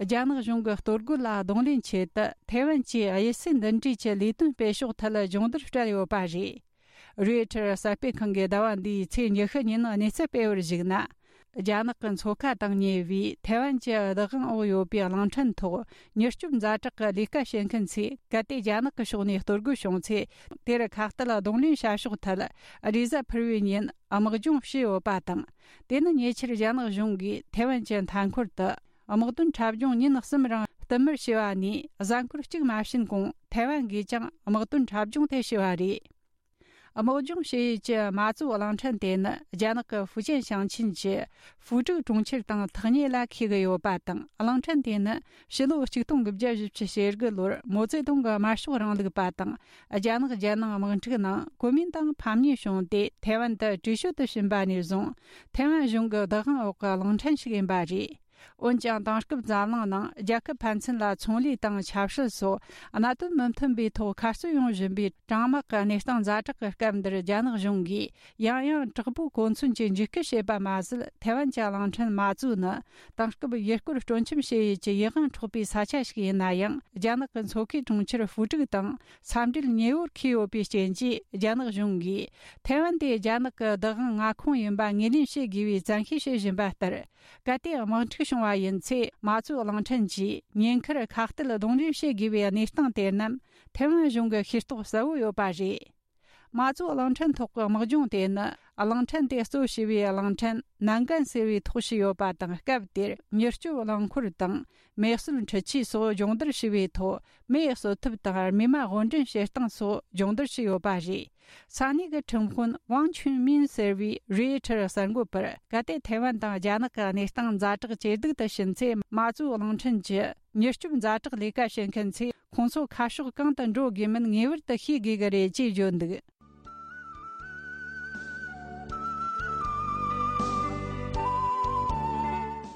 རྒྱ་ནག་གཞུང་གི་གཏོར་རྒོལ་ལ་གདོང་ལེན་ཆེད་དུ་ཐེ་ཝན་གྱིས་དབྱི་སི་འདི་འདྲའི་གི་ལས་དོན་སྤེལ་ཕྱོགས་ཐད་སྦྱོང་བརྡར་སྤྲད་ཡོད་པ་རེད། རོའི་ཊར་གསར་སྤེལ་ཁང་གིས་ཟླ་བ་འདིའི་ཚེས་ཉི་ཤུ་ཉིན་གནས་ཚུལ་སྤེལ་བར་གཞིགས་ན། རྒྱ་ནག་གི་མཚོ་ཁ་དང་ཉེ་བའི་ཐེ་ཝན་གྱི་བདག་དབང་འོག་ཡོད་པའི་གླིང་ཕྲན་ཐོག་མྱུར་སྐྱོབ་ཛ་དྲག་གི་ལས་ཀ་བྱེད་མཁན་ཚོས་གལ་ཏེ་རྒྱ་ནག་གི་ཕྱོགས་ནས་གཏོར་རྒོལ་བྱུང་ཚེ། དེར་ཁ་གཏད་གདོང་ལེན་བྱ་ཕྱོགས་ཐད་རེས་གཟའ་ཕུར་བུའི་ཉིན་དམག་སྦྱོང་བྱས་ཡོད་པ་དང་། དེ་ནི་ཉེ་ཆར་རྒྱ་ནག་གཞུང་གིས་ཐེ་ཝན་གྱི་མཐའ་འཁོར་དུ་དམག་དོན་འཁྲབ་སྦྱོང་ཉིན་གསུམ་རིང་བསྟུད་མར་བྱས་པ་ནས། གཟའ་འཁོར་གཅིག་མ་ཕྱིན་གོང་ཐེ་ཝན་གིས་ཀྱང་དམག་དོན་འཁྲབ་སྦྱོང་དེ་བྱས་པ་རེད། དམག་སྦྱོང་བྱེད་ཡུལ་གྱི་མ་ཙུའུ་གླིང་ཕྲན་དེ་ནི་རྒྱ་ནག་གི་ཧྥུ་ཅན་ཞིང་ཆེན་གྱི་ཧྥུ་ཀྲུའུ་གྲོང་ཁྱེར་དང་ཐག་ཉེ་ལ་འཁེལ་གྱི་ཡོད་པ་དང་། གླིང་ཕྲན་དེ་ནི་ཕྱི་ལོ་ཆིག་སྟོང་དགུ་བརྒྱ་བཞི་བཅུ་ཞེ་དགུ་ལོར་མའོ་ཙེ་ཏུང་གི་དམར་ཤོག་རིང་ལུགས་པ་དང་། རྒྱ་ནག་རྒྱལ་ནང་དམག་འཁྲུག་ནང་གོ་མིན་ཏང་ཕམ་ཉེས་བྱུང་སྟེ། ཐེ་ཝན་དུ་བྲོས་བྱོལ་དུ་ཕྱིན་པ་ནས་བཟུང་། ཐེ་ཝན་གཞུང་གི་བདག་དབང་འོག་གི་གླིང་ཕྲན་ཞིག་ཡིན་པ་རེད། འོན་ཀྱང་། དེང་སྐབས་འཛམ་གླིང་ནང་རྒྱལ་ཁབ་ཕན་ཚུན་ལ་ཚོང་ལས་དང་ཆབ་སྲིད་སོགས་གནད་དོན་མི་མཐུན་པའི་ཐོག་མཁའ་སྤྱོད་ཡོང་བཞིན་པའི་གྲང་དམག་གི་གནས་སྟངས་ཛ་དྲག་གི་སྐབས་འདིར། རྒྱ་ནག་གཞུང་གིས་ཡང་ཡང་དྲག་པོའི་གོ་མཚོན་གྱིས་འཇིགས་སྐུལ་བྱས་པ་མ་ཟད། ཐེ་ཝན་གྱི་གླིང་ཕྲན་མ་ཙུའུ་ནི་དེང་སྐབས་ཡུལ་སྐོར་སྤྲོ་འཆམ་བྱེད་ཡུལ་གྱི་ཡིད་དབང་འཕྲོག་པའི་ས་ཆ་ཞིག་ཡིན་ན་ཡང་། རྒྱ་ནག་གི་མཚོ་ཁའི་གྲོང་ཁྱེར་ཧྥུ་ཀྲུའུ་དང་ས་འབྲེལ་ཉེ་བོར་འཁེལ་ཡོད་པའི་རྐྱེན་གྱིས། རྒྱ་ནག་གཞུང་གིས་ཐེ་ཝན་དེ་རྒྱ་ནག་གི་བདག་དབང་མངའ་ཁོངས་ཡིན་པ་ངོས་ལེན་བྱེད་དགོས་པའི་བཙན་ཤེད་བྱེད་བཞིན་པ་ལྟར། གལ་ཏེ་དམག་འཁྲུག་བྱུང་བ་ཡིན་ཚེ། མ་ཙུའུ་གླིང་ཕྲན་གྱིས་ཉེན་ཁར་ཁ་གཏད་གདོང་ལེན་བྱེད་དགོས་པའི་གནས་སྟངས་དེ་རྣམས་ཐེ་ཝན་གཞུང་གི་ཤེས་རྟོགས་གསལ་བོ་ཡོད་པ་རེད། མ་ཙུའུ་གླིང་ཕྲན་ཐོག་གི་དམག་སྦྱོང་དེ་ནི། གླིང་ཕྲན་དེ་གཙོ་བྱས་པའི་གླིང་ཕྲན་ནན་ཀན་ཟེར་བའི་ཐོག་བྱས་ཡོད་པ་དང་། སྐབས་དེར་མྱུར་སྐྱོབ་རླངས་འཁོར་དང་མེ་གསོད་འཕྲུལ་ཆས་སོགས་སྦྱོང་བརྡར་བྱས་པའི་ཐོག་མེ་གསོད་ཐབས་དང་རྨས་མ་དབོར་འདྲེན་བྱེད་སྟངས་སོགས་སྦྱོང་བརྡར་བྱས་ཡོད་པ་རེད། ས་གནས་ཀྱི་ཁྲིམས་དཔོན་ཝང་ཆུན་མིན་ཟེར་བས་རོའི་ཊར་གསར་འགོད་པར། གལ་ཏེ་ཐའེ་ཝན་དང་རྒྱ་ནག་གི་གནས་སྟངས་ཛ་དྲག་ཇེ་སྡུག་ཏུ་ཕྱིན་ཚེ། མ་ཙུའུ་གླིང་ཕྲན་གྱི་མྱུར་སྐྱོབ་ཛ་དྲག་ལས་ཀ་བྱེད་མཁན་ཚོས་ཁོང་ཚོ་ཁ་ཕྱོགས་གང་དུ་འགྲོ་དགོས་མིན་ངེས་པར་དུ་ཤེས་དགོས་ཀྱི་རེད་ཅེས་བརྗོད་འདུག།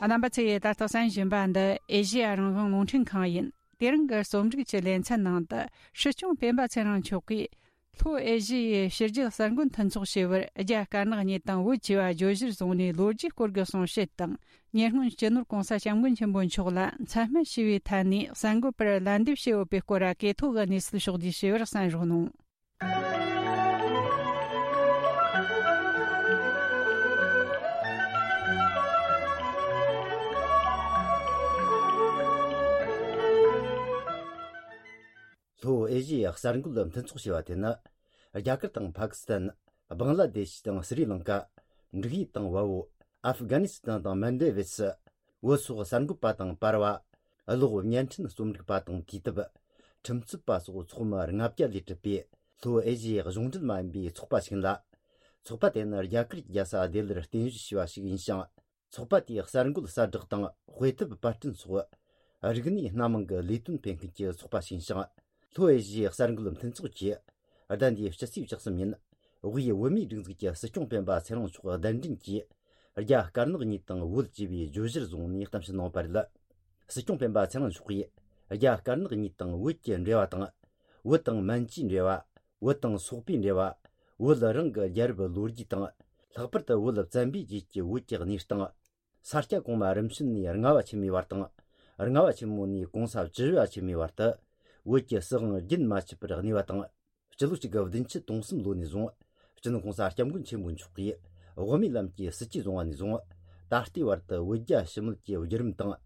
རྣམ་པ་ཚོས་ད་ལྟ་གསན་བཞིན་པ་འདི་ཨེ་ཤེ་ཡ་རང་དབང་རླུང་འཕྲིན་ཁང་ཡིན། དེ་རིང་གི་རྩོམ་སྒྲིག་གི་ལེ་ཚན་ནང་དུ། སྲིད་སྐྱོང་སྤེན་པ་ཚེ་རིང་མཆོག་གིས། ལྷོ་ཨེ་ཤི་ཡའི་ཕྱི་རྒྱལ་གསར་འགོད་མཐུན་ཚོགས་ཞེས་པར་རྒྱ་དཀར་ནག་གཉིས་དང་བོད་ཅེས་པ་བརྗོད་གཞིར་བཟུང་ནས་ལོ་རྒྱུས་སྐོར་གྱི་གསུང་བཤད་དང་། ཉེ་སྔོན་སྤྱི་ནོར་༸གོང་ས་༸སྐྱབས་མགོན་ཆེན་པོ་མཆོག་ལ་མཚན་སྨད་ཞུས་པའི་ཐད་ནས་གསར་འགོད་པར་ལན་འདེབས་བྱས་ཡོད་པའི་སྐོར་གྱི་ཐོག་གི་གནས་ཚུལ་ཕྱོགས་བསྡུས་ཞུས་པར་གསན་རོགས་གནང་། ལྷོ་ཨེ་ཤི་ཡའི་གསར་འགོད་མཐུན་ཚོགས་ཞེས་པ་དེ་ནི། རྒྱ་གར་དང་ཕ་ཀི་སི་ཐན། བང་ལ་དེ་ཤི་དང་སི་རི་ལང་ཀ། འབྲུག་ཡུལ་དང་བལ་པོ། ཨབ་གྷ་ནི་སི་ཐན་དང་མན་ཌེ་བེ་སི། བོད་སོགས་གསར་འགོད་པ་དང་པར་བ། གློག་བརྙན་འཕྲིན་རྩོམ་སྒྲིག་པ་དང་དུས་དེབ། ཁྲིམས་རྩོད་པ་སོགས་ཚོགས་མི་ལྔ་བརྒྱ་ལས་གྲུབ་པའི་ལྷོ་ཨེ་ཤི་ཡའི་གཞུང་འབྲེལ་མ་ཡིན་པའི་ཚོགས་པ་ཞིག་ཡིན་ལ། ཚོགས་པ་དེ་ནི་རྒྱ་གར་གྱི་རྒྱལ་ས་ལྡི་ལིར་རྟེན་གཞི་བྱས་པ་ཞིག་ཡིན་ཞིང་། ཚོགས་པ་དེའི་གསར་འགོད་གསལ་བསྒྲགས་དང་དཔེ་དེབ་པར་སྐྲུན་སོགས་རིག་གནས་སྣ་མང་གི་ལས་དོན་སྤེལ་མཁན་གྱི་ཚོགས་པ་ཞིག་ཡིན་ཞིང་། ལྷོ་ཨེ་ཤི་ཡའི་གསར་འགོད་མཐུན་ཚོགས་ཀྱིས་ཟླ་འདིའི་སྤྱི་ཚེས་བཅུ་གསུམ་ཉིན་དབུས་བོད་མིའི་སྒྲིག་འཛུགས་ཀྱི་སྲིད་སྐྱོང་སྤེན་པ་ཚེ་རིང་མཆོག་གདན་འདྲེན་གྱིས་ རྒྱ་དཀར་ནག་གཉིས་དང་བོད་ཅེས་པའི་བརྗོད་གཞིར་བཟུང་ནས་གཏམ་བཤད་གནང་བ་རེད། སྲིད་སྐྱོང་སྤེན་པ་ཚེ་རིང་མཆོག་གིས་རྒྱ་དཀར་ནག་གཉིས་དང་བོད་ཀྱི་འབྲེལ་བ་དང་། བོད་དང་མན་ཇུའི་འབྲེལ་བ། བོད་དང་སོག་པོའི་འབྲེལ་བ། བོད་རང་གི་རྒྱལ་རབས་ལོ་རྒྱུས་དང་། ལྷག་པར་དུ་བོད་བཙན་པོའི་རྗེས་ཀྱི་བོད་ཀྱི་གནས་སྟངས། ས་སྐྱ་གོང་མ་རིམ་བྱོན་ནས་ལྔ་བ་ཆེན་མོའི་བར་དང་། ལྔ་བ་ཆེན་མོ་ནས་གོང་ས་བཅུ་བཞི་བ་ཆེན་མོའི་བར་དུ། བོད་ཀྱི་སྲིད་དབང་རྒྱུན་མ་ཆད་པར་གནས་པ་དང་། སྤྱི་ལོ་གཅིག་དགུ་བདུན་ཅུ་དོན་གསུམ་ལོ་ནས་བཟུང་། སྤྱི་ནོར་གོང་ས་སྐྱབས་མགོན་ཆེན་པོ་མཆོག་གིས་དབུ་མའི་ལམ་གྱི་སྲིད་ཇུས་བཟུང་བ་ནས་བཟུང་། ད་ལྟའི་བར་དུ་བོད་རྒྱ་ཞི་མོལ་གྱི་བརྒྱུད་རིམ་དང་།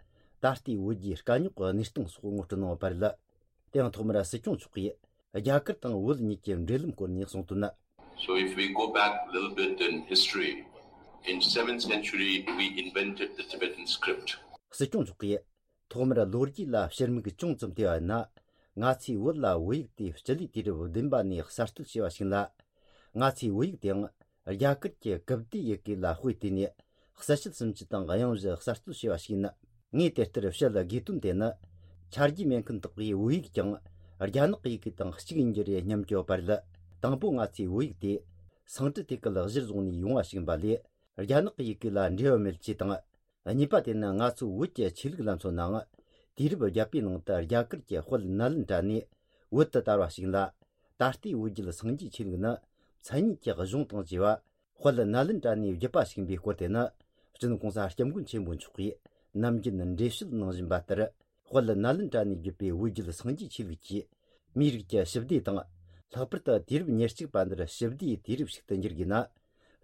ད་ལྟའི་བོད་རྒྱའི་དཀའ་རྙོག་གི་གནས་སྟངས་སོགས་ངོ་སྤྲོད་གནང་བ་རེད། དེ་ཡང་ཐོག་མར་སྲིད་སྐྱོང་མཆོག་གིས་རྒྱ་གར་དང་བོད་གཉིས་ཀྱི་འབྲེལ་ལམ་སྐོར་ནས་གསུངས་དོན། So if we go back a little bit in history, in seventh century we invented the Tibetan script. སྲིད་སྐྱོང་མཆོག་གིས་ཐོག་མར་ལོ་རྒྱུས་ལ་ཕྱིར་མིག་ཅུང་ཙམ་བལྟས་པ་ཡིན་ན། ང་ཚོས་བོད་ལ་བོད་ཡིག་དེ་སྤྱི་ལོའི་དུས་རབས་བདུན་པ་ནས་གསར་གཏོད་བྱས་པ་ཞིག་ལ། ང་ཚོས་བོད་ཡིག་དེའང་རྒྱ་གར་གྱི་ཀིབ་ཏི་ཡི་གེ་ལ་དཔེ་བལྟས་ནས་གསལ་བཤད་སུམ་ཅུ་དང་དབྱངས་བཞི་གསར་གཏོད་བྱས་པ་ཞིག་ཡིན། ངས་དེ་ལྟར་བཤད་དགོས་དོན་དེ་ནི། ཆ་རྒྱུས་མེད་མཁན་དག་གིས་བོད་ཡིག་ཀྱང་རྒྱ་ནག་གི་ཡི་གེ་དང་གཅིག་ཡིན་རྒྱུ་རེད་སྙམ་གྱི་ཡོད་པ་རེད། དང་པོ་ང་ཚོས་བོད་ཡིག་དེ་སང་ཀྲི་ཏི་ཀལ་གཞིར་བཟུང་ནས་ཡོང་བ་ཞིག་ཡིན་པ་ལས། རྒྱ་ནག་གི་ཡི་གེ་ལ་འབྲེལ་བ་མེད་ཅེས་དང་། གཉིས་པ་དེ་ནི་ང་ཚོའི་བོད་ཀྱི་ཆོས་ལུགས་ལ་མཚོན་ནའང་། དུས་རབས་བརྒྱད་པའི་ནང་དུ་རྒྱ་གར་གྱི་དཔལ་ནཱ་ལེནྡྲ་ནས་བོད་དུ་དར་བ་ཞིག་ལ། ད་ལྟའི་བོད་བརྒྱུད་སངས་རྒྱས་ཆོས་ལུགས་ནི་མཚན་ཉིད་ཀྱི་གཞུང་དང་བཅས་པ་དཔལ་ནཱ་ལེནྡྲ་ནས་བརྒྱུད་པ་ཞིག་ཡིན་པའི་སྐོར་དེ་ནི། སྤྱི་ནོར་གོང་ས་སྐྱབས་མགོན་ཆེན་པོ་མཆོག་གིས་ནམ་རྒྱུན་འགྲེལ་བཤད་གནང་བཞིན་པ་ལྟར། དཔལ་ནཱ་ལེནྡྲ་ནས་བརྒྱུད་པའི་བོད་བརྒྱུད་སངས་རྒྱས་ཆོས་ལུགས་ཀྱིས་མིའི་རིགས་ཀྱི་ཞི་བདེ་དང་། ལྷག་པར་དུ་དུས་རབས་ཉེར་གཅིག་པ་འདིར་ཞི་བདེའི་དུས་རབས་ཤིག་ཏུ་འགྱུར་དགོས་ན།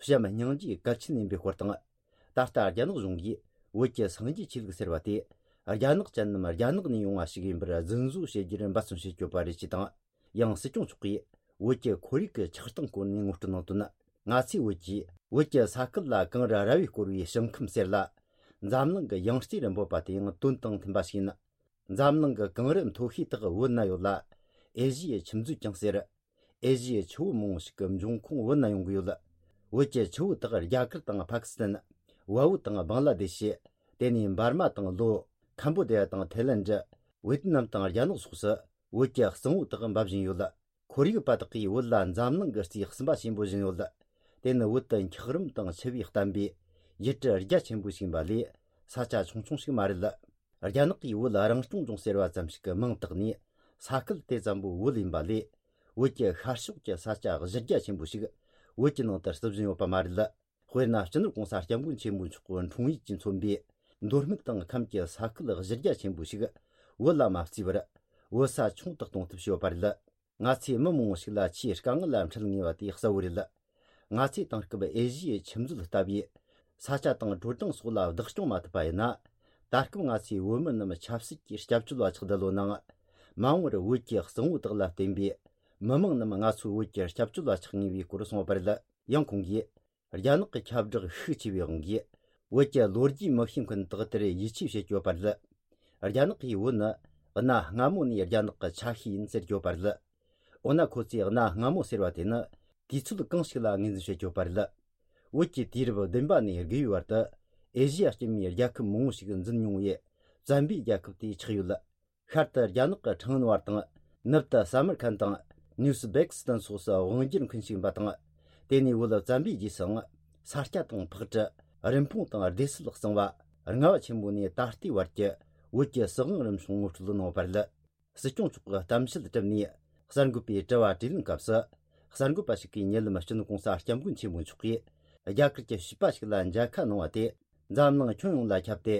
བྱམས་སྙིང་རྗེ་གལ་ཆེན་ཡིན་པའི་སྐོར་དང་། ད་ལྟ་རྒྱ་ནག་གཞུང་གིས་བོད་ཀྱི་སངས་རྒྱས་ཆོས་ལུགས་ཟེར་བ་དེ། རྒྱ་ནག་ཅན་ནམ་རྒྱ་ནག་ནས་ཡོང་བ་ཞིག་ཡིན་པར་རྫུན་བཟོ་བྱེད་རྒྱུར་འབད་བརྩོན་བྱེད་ཀྱི་ཡོད་པ་རེད་ཅེས་དང་། ཡང་སྲིད་སྐྱོང་མཆོག་གིས་བོད་ཀྱི་ཁོར་ཡུག་གི་ཆགས་སྟངས་སྐོར་ནས་ངོ་སྤྲོད་གནང་དོན། ང་ཚོས་བོད་ཀྱིས་བོད་ཀྱི་ས་ཁུལ་ལ་གངས་རི་ར་བས་བསྐོར་བའི་ཞིང་ཁམས་ཟེར་ལ། འཛམ་གླིང་གི་ཡང་རྩེ་རུ་འབོད་པ་དེ་ཡང་དོན་དང་མཐུན་པ་ཞིག་ཡིན། འཛམ་གླིང་གི་གངས་རི་མཐོ་ཤོས་དག་བོད་ན་ཡོད་ལ། ཨེ་ཤི་ཡའི་ཁྱིམ་མཛོད་ཀྱང་ཟེར། ཨེ་ཤི་ཡའི་ཆུ་བོ་མང་བོ་ཞིག་གི་འབྱུང་ཁུངས་བོད་ན་ཡོང་གི་ཡོད། བོད་ཀྱི་ཆུ་བོ་དག་རྒྱ་གར་དང་ཕ་ཀི་སི་ཐན། ཝ་བོད་དང་བང་ལ་དེ་ཤི། དེ་ནས་འབར་མ་དང་ལོ། ཁམ་བོ་ཌི་ཡ་དང་ཐའི་ལན་ཌི། ཝེ་ཏི་ནམ་དང་རྒྱ་ནག་སོགས་སུ་བོད་ཀྱི་གཙང་བོ་དག་འབབ་བཞིན་ཡོད། ཁོར་ཡུག་པ་དག་གིས་བོད་ལ་འཛམ་གླིང་གི་རྩིས་གསུམ་པ་ཆེན་པོ་བཞིན་ཡོད། དེ་ནི་བོད་དུ་འཁྱགས་རོམ་དང་ཆུ་བས་བསྟན་པའི་ཡུལ་གྲུ་རྒྱ་ཆེན་པོ་ཞིག་ཡིན་པ་ལས། ས་ཆ་ཆུང་ཆུང་ཞིག་མ་རེད། རྒྱ་ནག་གིས་བོད་རང་སྐྱོང་ལྗོངས་ཟེར་བ་ཙམ་ཞིག་གི་མིང་བཏགས་ནས། ས་ཁུལ་དེ་ཙམ་པོ་བོད་ཡིན་པ་ལས། བོད་ཀྱི་ཤར་ཕྱོགས་ཀྱི་ས་ཆ་གཞི་རྒྱ་ཆེན་པོ་ཞིག་བོད་ཀྱི་ནང་དུ་བརྩི་བཞིན་ཡོད་པ་མ་རེད། དཔེར་ན། སྤྱི་ནོར་གོང་ས་སྐྱབས་མགོན་ཆེན་པོ་མཆོག་གི་འཁྲུངས་ཡུལ་གྱིས་མཚོན་པའི་མདོ་སྨད་དང་ཁམས་ཀྱི་ས་ཁུལ་གཞི་རྒྱ་ཆེན་པོ་ཞིག་བོད་ལ་མ་བརྩིས་པར། བོད་ས་ཆུང་དུ་གཏོང་ཐབས་བྱས་ཡོད་པ་རེད། ང་ཚོས་མི་མང་བོ་ཞིག་ལ་ཆེས་དཀའ་ངལ་ལ་འཕྲད་ངེས་པ་དེ་གསལ་བོ་རེད། ང་ཚོས་དེང་སྐབས་ཨེ་ཤི་ཡའི་ཁྱིམ་མཛོད་ལྟ་བུའི་ས་ཆ་དང་དྲོ་གྲང་སོགས་ལ་བདག་སྐྱོང་མ་ཐུབ་པ་ཡིན་ན། ད་སྐབས་ང་ཚོས་བོད་མི་རྣམས་ཆབ་སྲིད་ཀྱི་སྐྱབས་བཅོལ་བ་ཆགས་བསྡད་ཡོད་ནའང་། མ་འོངས་པར་བོད་ཀྱི་གཙང་བོ་དག་ལ་བརྟེན་པའི་མི་མང་རྣམས་ང་ཚོའི་བོད་ཀྱི་སྐྱབས་བཅོལ་བ་ཆགས་ངེས་པའི་སྐོར་གསུངས་པ་རེད། ཡང་ཁོང་གིས། རྒྱ་ནག་གི་ཁྱབ་བསྒྲགས་ཤུགས་ཆེ་བའི་དབང་གིས། བོད་ཀྱི་ལོ་རྒྱུས་མི་ཤེས་མཁན་དག་དེར་ཡིད་ཆེས་བྱེད་ཀྱི་ཡོད་པ་རེད། རྒྱ་ནག་གིས་བོད་ནི་གནའ་སྔ་མོ་ནས་རྒྱ་ནག་གི་ཆ་ཤས་ཡིན་ཟེར་གྱི་ཡོད་པ་རེད། འོ་ན་ཁོ་ཚོས་གནའ་སྔ་མོ་ཟེར་བ་དེ་ནི་དུས་ཚོད་གང་ཞིག་ལ་ངོས་འཛིན་བྱེད་ཀྱི་ཡོད་པ་རེད། བོད་ཀྱི་དུས་རབས་བདུན་པ་ནས་དགུ་བའི་བར་དུ་ཨེ་ཤི་ཡ་སྐྱེད་མོས་རྒྱལ་ཁབ་མང་བོ་ཞིག་འཛིན་མྱོང་བའི་བཙན་པོའི་རྒྱལ་ཁབ་དེ་ཆགས་ཡོད། ཤར་དུ་རྒྱ་ནག་གི་ཁྲང་ཨན་བར་དང་། ནུབ་ཏུ་ས་མར་ཁན་དང་། ནུས་སྦེག་སི་ཏན་སོགས་སུ་དབང་སྒྱུར་མཁན་ཞིག་ཡིན་པ་དང་། དེ་ནས་བོད་བཙན་པོའི་རྗེས་སུའང་ས་སྐྱ་དང་ཕག་གྲུ། རིན་སྤུངས་དང་སྡེ་སྲིད་གཙང་བ། རྔ་བ་ཆེན་པོ་ནས་ད་ལྟའི་བར་གྱི་བོད་ཀྱི་སྲིད་དབང་རིམ་བྱུང་ངོ་སྤྲོད་གནང་བ་རེད། སྲིད་སྐྱོང་མཆོག་གིས་གཏམ་བཤད་གྲུབ་ནས་གསར་འགོད་པའི་དྲི་བ་དྲིས་ལན་སྐབས་སུ། གསར་འགོད་པ་ཞིག་གིས་ཉེ་ལམ་སྤྱི་ནོར་གོང་ས་སྐྱབས་མགོན་ཆེན་པོ་མཆོག་གིས་རྒྱ་གར་གྱི་བྱིས་པ་ཞིག་ལ་མཇལ་ཁ་གནང་བ་དེ། འཛམ་གླིང་ཁྱོན་ཡོངས་ལ་ཁྱབ་སྟེ།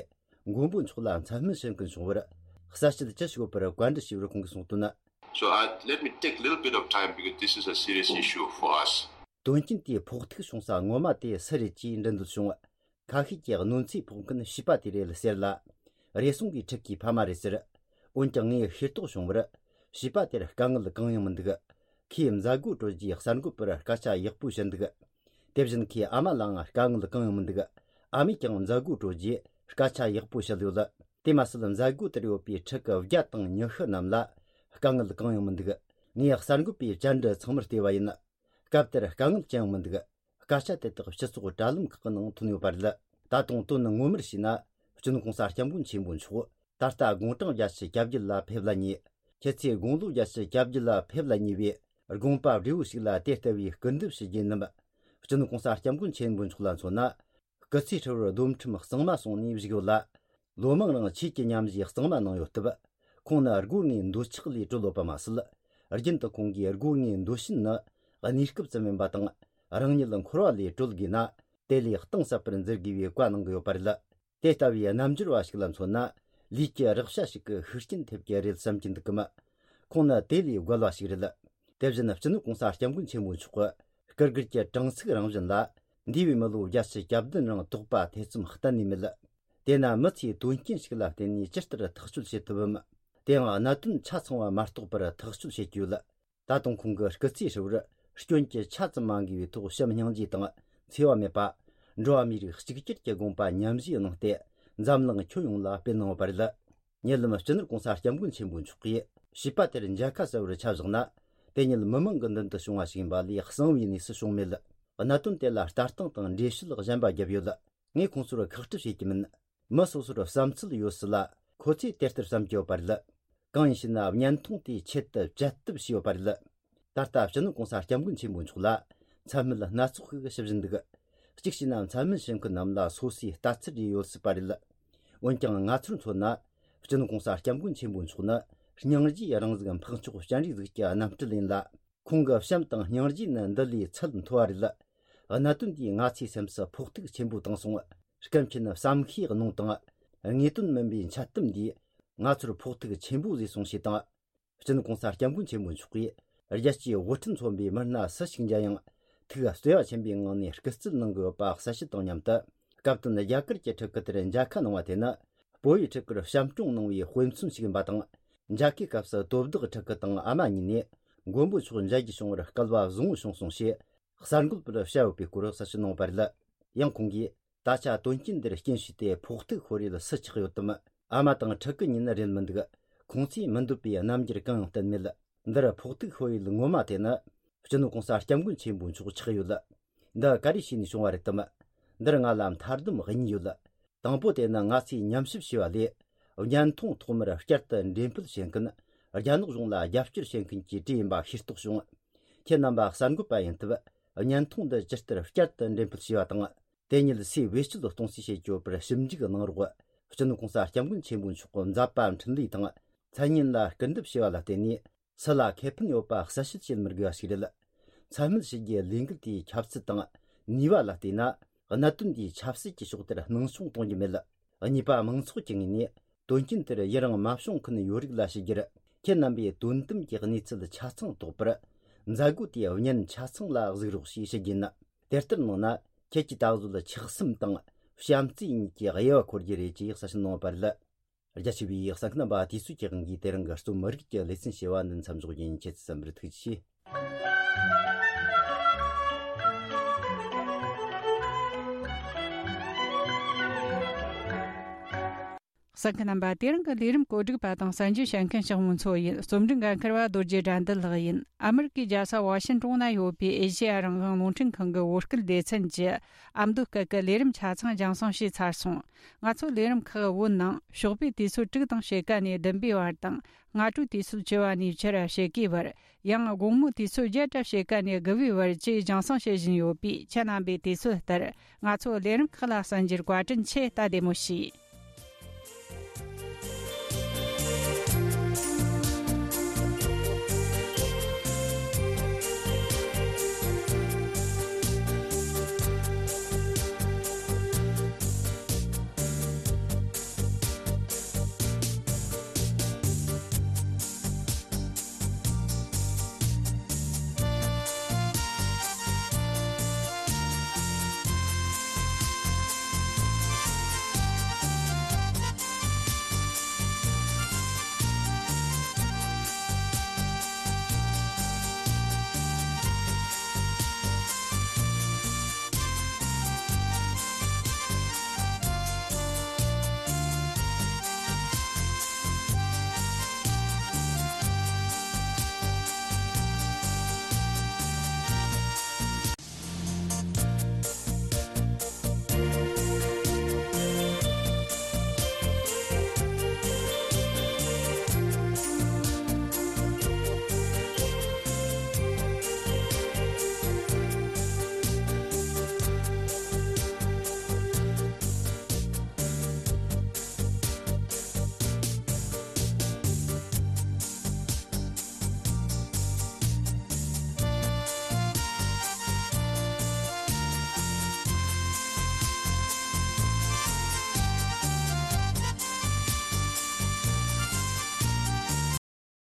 མགོན་པོ་མཆོག་ལ་མཚན་སྨད་བྱེད་མཁན་བྱུང་བར་གསལ་བཤད་ཅི་ཞིག་ཡོད་པར་བཀའ་འདྲི་ཞུས་པར་ཁོང་གིས་གསུངས་དོན། So I, let me take a little bit of time because this is a serious issue for us. དོན་རྐྱེན་དེའི་ཕོག་ཐུག་བྱུང་ས་ངོ་མ་དེ་སུ་རེད་ཅེས་འདྲི་འདོད་བྱུང་། ཁ་ཤས་ཀྱིས་གནོད་འཚེ་ཕོག་མཁན་བྱིས་པ་དེ་རེད་ཟེར་ལ། རེ་ཟུང་གིས་ཕྲུ་གུའི་ཕ་མ་རེད་ཟེར། འོན་ཀྱང་ངས་ཤེས་རྟོགས་བྱུང་བར། བྱིས་པ་དེར་དཀའ་ངལ་གང་ཡང་མི་འདུག་ཁོས་མཛད་སྒོ་གྲོལ་རྗེས་གསར་འགོད་པར་སྐད་ཆ་ཡག་པོ་བཤད་འདུག་དེ་བཞིན་ཁོའི་ཨ་མ་ལའང་དཀའ་ངལ་གང་ཡང་མི་འདུག་ཨ་མས་ཀྱང་མཛད་སྒོ་གྲོལ་རྗེས་སྐད་ཆ་ཡག་པོ་བཤད་ཡོད། དེ་མ་ཟད་མཛད་སྒོ་དེར་ཡོད་པའི་ཕྲུ་གུ་བརྒྱ་དང་ཉི་ཤུ་རྣམས་ལ་དཀའ་ངལ་གང་ཡང་མི་འདུག་ངས་གསར་འགོད་པའི་བཅར་འདྲི་ཚང་མར་བལྟས་པ་ཡིན། སྐབས་དེར་དཀའ་ངལ་ཅི་ཡང་མི་འདུག་སྐད་ཆ་དེ་དག་སྤྱི་ཚོགས་དྲ་ལམ་ཁག་གི་ནང་ཐོན་ཡོད་པ་རེད། ད་དུང་དོན་ངོ་མར་བྱས་ན། སྤྱི་ནོར་གོང་ས་སྐྱབས་མགོན་ཆེན་པོ་མཆོག་ད་ལྟ་དགུང་གྲངས་བརྒྱད་ཅུ་གྱ་བརྒྱད་ལ་ཕེབས་ལ་ཉེ། ཁྱེད་ཚོས་དགུང་ལོ་བརྒྱད་ཅུ་གྱ་བརྒྱད་ལ་ཕེབས་ལ་ཉེ་བའི་དགོངས་པ་བགྲེས་པོ་ཞིག་ལ་དེ་ལྟ་བུའི་སྐུར་འདེབས་ཞུ་རྒྱུ་ཡིན་ནམ། སྤྱི་ནོར་གོང་ས་སྐྱབས་མགོན་ཆེན་པོ་མཆོག་ལ་མཚོན་ན། སྐུ་ཚེ་ཧྲིལ་བོར་སྡོམ་ཁྲིམས་གཙང་མ་སྲུང་ནས་བཞུགས་ཡོད་ལ། ལོ་མང་རིང་ཆོས་ཀྱི་ཉམས་བཞེས་གཙང་མ་གནང་ཡོད་སྟབས། ཁོང་ནི་སྒོ་ལྔའི་འདོད་ཆགས་ལས་གྲོལ་ཡོད་པ་མ་ཟད། རྒྱུན་དུ་ཁོང་གིས་སྒོ་ལྔའི་འདོད་ཞེན་ནི་གནས་སྐབས་ཙམ་ཡིན་པ་དང་། རང་ཉིད་འཁོར་བ་ལས་གྲོལ་དགོས་ན། དེ་ལས་གཏིང་ཟབ་པར་འཛིན་དགོས་པའི་བཀའ་གནང་གི་ཡོད་པ་རེད། དེ་ལྟ་བུའི་རྣམ་འགྱུར་བ་ཞིག་ལ་མཚོན་ན། ལུས་ཀྱི་རེག་བྱ་ཞིག་གི་ཤུགས་རྐྱེན་ཐེབས་ཀྱི་རེད་བསམ་གྱི་འདུག་གམ། ཁོང་ནི་དེ་ལས་རྒོལ་བ་ཞིག་རེད། དེ་བཞིན་སྤྱི་ནོར་༸གོང་ས་༸སྐྱབས་མགོན་ཆེན་པོ་མཆོག་གི་སྐུ་སྒེར་གྱི་དྲང་ཚིག་རང་བཞིན་ལ། འདས་པའི་མི་ལོ་བརྒྱད་ཅུ་གྱ་བདུན་རིང་དོགས་པ་ཐེ་ཚོམ་གཏན་ནས་མེད། དེས་ན་མི་ཚེའི་དོན་རྐྱེན་ཞིག་ལ་བརྟེན་ནས་ཇི་ལྟར་ཐག་གཅོད་བྱེད་ཐུབ་བམ། དེའང་གནད་དོན་ཆ་ཚང་བ་མ་རྟོགས་པར་ཐག་གཅོད་བྱེད་ཀྱི་ཡོད། ད་དུང་ཁོང་གི་སྐུ་ཚེ་ཧྲིལ་བོར་སྐྱོན་གྱི་ཆ་ཙམ་མ་འགོས་པའི་ཐོག་བྱམས་སྙིང་རྗེ་དང་འཚེ་བ་མེད་པ། འགྲོ་བ་མིའི་རིགས་གཅིག་གྱུར་གྱི་དགོངས་པ་ཉམས་བཞེས་གནང་སྟེ། འཛམ་གླིང་ཁྱོན་ཡོངས་ལ་སྤེལ་གནང་བ་རེད། ཉེ་ལམ་སྤྱི་ནོར་༸གོང་ས་༸སྐྱབས་མགོན་ཆེན་པོ་མཆོག་གིས་བྱིས་པ་དེར་མཇལ་ཁ་གསལ་བོར་ཆ་བཞག་ན། དེ་ཉིད་མི་མང་གི་མདུན་དུ་བྱུང་བ་ཞིག་ཡིན་པ་ལས་གསང་བའི་གནས་སུ་བྱུང་མེད། གནད་དོན་དེ་ལ་ལྟ་སྟངས་དང་འགྲེལ་བཤད་གཞན་པ་བརྒྱབ་ཡོད། ངས་ཁོང་ཚོར་ཁག་དཀྲི་བྱེད་ཀྱི་མིན། མི་སོ་སོར་བསམ་ཚུལ་ཡོད་སྲིད་ལ། ཁོ་ཚོས་དེ་ལྟར་བསམ་གྱི་ཡོད་པ་རེད། གང་ཡིན་ཞེ་ན། བརྙན་ཐུང་དེའི་ཆེད་དུ་བཅད་གཏུབ་བྱས་ཡོད་པ་རེད། ད་ལྟ་སྤྱི་ནོར་༸གོང་ས་༸སྐྱབས་མགོན་ཆེན་པོ་མཆོག་ལ་མཚན་སྨད་སྣ་ཚོགས་ཤིག་ཞུ་བཞིན་འདུག། གཅིག་བྱས་ན། མཚན་སྨད་ཞུ་མཁན་རྣམས་ལ་སོ་སོའི་ལྟ་ཚུལ་རེ་ཡོད་སྲིད་པ་རེད། འོན་ཀྱང་ང་ཚོར་མཚོན་ན། སྤྱི་ནོར་༸གོང་ས་༸སྐྱབས་མགོན་ཆེན་པོ་མཆོག་ནི་སྙིང་རྗེའི་རང་གཟུགས་འཕགས་མཆོག་སྤྱན་རས་གཟིགས་ཀྱི་རྣམ་སྤྲུལ་ཡིན་ལ། ཁོང་གི་བྱམས་དང་སྙིང་རྗེ་ནི་འདི་ལས་ཚད་མཐོ་བ་རེད། གནད་དོན་འདིས་ང་ཚོའི་སེམས་སུ་ཕོག་ཐུག་ཆེན་པོ་བཏང་སོང་། སྐད་ཆེན་བསམ་ཤེས་གནང་དང་། ངེས་དོན་མིན་པའི་འཆལ་གཏམ་འདིས་ང་ཚོར་ཕོག་ཐུག་ཆེན་པོ་བཟོས་སོང་ཞེས་དང་། སྤྱི་ནོར་༸གོང་ས་༸སྐྱབས་མགོན་ཆེན་པོ་མཆོག་གིས་རྒྱལ་སྤྱིའི་དབུ་ཁྲིད་མཚོན་པའི་མི་སྣ་སུ་ཞིག་མཇལ་ཡང་། ཐུགས་བརྩེ་བ་ཆེན་པོའི་ངང་ནས་སྐུ་རྩེད་གནང་གི་ཡོད་པ་གསལ་བཤད་དང་མཉམ་དུ། སྐབས་དོན་རྒྱ་གར་གྱི་ཕྲུ་གུ་དེར་མཇལ་ཁ་གནང་བ་དེ་ནི། བོད་ཡིག་ཕྲུ་གུར་བྱམས་སྐྱོང་གནང་བའི་དཔེ་མཚོན་ཞིག་ཡིན་པ་དང་། མཇལ་ཁའི་སྐབས་སུ་དོ་བདག་ཕྲུ་གུ་དང་ཨ་མ་གཉིས་ནས། མགོན་པོ་མཆོག་མཇལ་རྒྱུ་བྱུང་བར་སྐལ་བ་བཟང་བོ་བྱུང་སོང་ཞེས། གསར་འགོད་པར་བཤད་ཡོད་པའི་སྐོར་གསལ་བཤད་གནང་བ་རེད། ཡང་ཁོང་གིས། ད་ཆ་དོན་རྐྱེན་འདིར་རྐྱེན་བྱས་ཏེ་ཕོག་ཐུག་ཤོར་ཡུལ་སུ་ཆགས་ཡོད་དམ། ཨ་མ་དང་ཕྲུ་གུ་གཉིས་ནི་རེད་མི་འདུག། ཁོང་ཚོས་མི་འདོད་པའི་རྣམ་འགྱུར་གང་ཡང་བསྟན་མེད། འདིར་ཕོག་ཐུག་ཤོར་ཡུལ་ངོ་མ་དེ་ནི། སྤྱི་ནོར་༸གོང་ས་༸སྐྱབས་མགོན་ཆེན་པོ་མཆོག་ཆགས་ཡོད། འདི་ག་རེ་བྱས་ནས་བྱུང་བ་རེད་དམ། འདིར་ང་ལ་མཐའ་སྡོམ་གཉིས་ཡོད། དང་པོ་དེ་ནི་ང་ཚོས་ཉམས་ཞིབ་བྱས་པ་ལས། བརྙན་ཐུང་ཐོག་མར་བསྐྱར་དུ་འགྲེམས་སྤེལ་བྱེད་མཁན། རྒྱ་ནག་གཞུང་ལ་རྒྱབ་སྐྱོར་བྱེད་མཁན་གྱི་གྲས་ཡིན་པ་ཤེས་རྟོགས་བྱུང་། ཁྱེད་རྣམ་པ་གསར་འགོད་པ་ཡིན་སྟབས། བརྙན་ཐུང་འདི་ཇི་ལྟར་བསྐྱར་དུ་འགྲེམས་སྤེལ་བྱས་པ་དང་། དེ་ཉིད་སུས་བེད་སྤྱོད་གཏོང་རྩིས་བྱེད་ཀྱི་ཡོད་པར་ཞིབ་འཇུག་གནང་རོགས། སྤྱི་ནོར་༸གོང་ས་༸སྐྱབས་མགོན་ཆེན་པོ་མཆོག་གི་མཛད་པ་འཕྲིན་ལས་དང་། མཚན་སྙན་ལ་སྐུར་འདེབས་བྱས་པ་ལ་བརྟེན་ནས། སུ་ལ་ཁེ་ཕན་ཡོད་པ་གསལ་བཤད་བྱེད་མི་དགོས་པ་ཞིག་རེད། མཚན་སྨད་ཞུ་རྒྱུའི་ལས་འགུལ་དེའི་ཁྱབ་ཚད་དང་ནུས་པ་ལ་བལྟས་ན། གནད་དོན་དེའི་ཆབ་སྲིད་ཀྱི་ཕྱོགས་དེར་སྣང་ཆུང་གཏོང་རྒྱུ་མེད། གཉིས་པ། མང་ཚོགས་ཀྱི་ངོས་ནས་དོན་རྐྱེན་དེར་ཡི་རང་མ་བྱུང་མཁན་ཡོད་རིགས་ལ་ཞུ་རྒྱུར། ཁྱེད་རྣམ་པས་དོན་དམ་གྱི་གནས་ཚུལ་ཆ་ཚང་རྟོགས་པར། མཛད་སྒོ་དེའི་བརྙན་ཆ་ཚང་ལ་གཟིགས་རོགས་ཞེས་ཞུ་རྒྱུ་ཡིན། དེ་ལྟར་གནང་ན། ཁྱེད་ཀྱིས་ད་གཟོད་ཆགས་སེམས་དང་བྱམས་བརྩེ་གཉིས་ཀྱི་དབྱེ་བ་འཁོར་རྒྱུ་རེད་ཅེས་གསལ་བཤད་གནང་བ་རེད། རྒྱ་ཆེ་བའི་གསན་མཁན་རྣམ་པ། དུས་ཚོད་ཀྱི་དབང་གིས་དེ་རིང་གི་རྩོམ་རིག་གི་ལེ་ཚན་ཞེས་པ་འདི་མཚམས་འཇོག་རྒྱུ་ཡིན། ཁྱེད་ཚོས་གསན་པར་ཐུགས་རྗེ་ཆེ། གསན་མཁན་རྣམ་པ། དེ་རིང་གི་ལས་རིམ་བཀོད་སྒྲིག་པ་དང་གསན་རྒྱུ་བྱེད་མཁན་ཞིག་མོ་མཚོ་ཡིན། རྩོམ་སྒྲིག་འགན་འཁུར་བ་རྡོ་རྗེ་དགྲ་འདུལ་ལགས་ཡིན། ཨ་མི་རི་ཀའི་རྒྱལ་ས་ཝ་ཤིན་ཀྲུང་ན་ཡོད་པའི་ཨེ་ཤེ་ཡ་རང་དབང་རླུང་འཕྲིན་ཁང་གི་བོད་སྐད་སྡེ་ཚན་གྱི་ཨ་མདོ་སྐད་ཀྱི་ལས་རིམ་ཆ་ཚང་རྒྱང་སྲིང་བྱས་ཚར་སོང་། ང་ཚོ་ལས་རིམ་ཁག་བོད་ནང་ཞོགས་པའི་དུས་ཚོད་དྲུག་དང་ཕྱེད་ཀ་ནས་བདུན་པའི་བར་དང་། སྔ་དྲོའི་དུས་ཚོད་བཅུ་པ་ནས་ཕྱི་ར་ཕྱེད་ཀའི་བར། ཡང་དགོང་མོའི་དུས་ཚོད་བརྒྱད་དང་ཕྱེད་ཀ་ནས་དགུ་པའི་བར་བཅས་རྒྱང་སྲིང་བྱེད་བཞིན་ཡོད་པས། ཁྱེད་རྣམ་པས་དུས་ཚོད་ལྟར་ང་ཚོའི་ལས་རིམ་ཁག་ལ་གསན་རྒྱུར་བཀའ་དྲིན་ཆེ། ད་བདེ་མོ་བྱོས།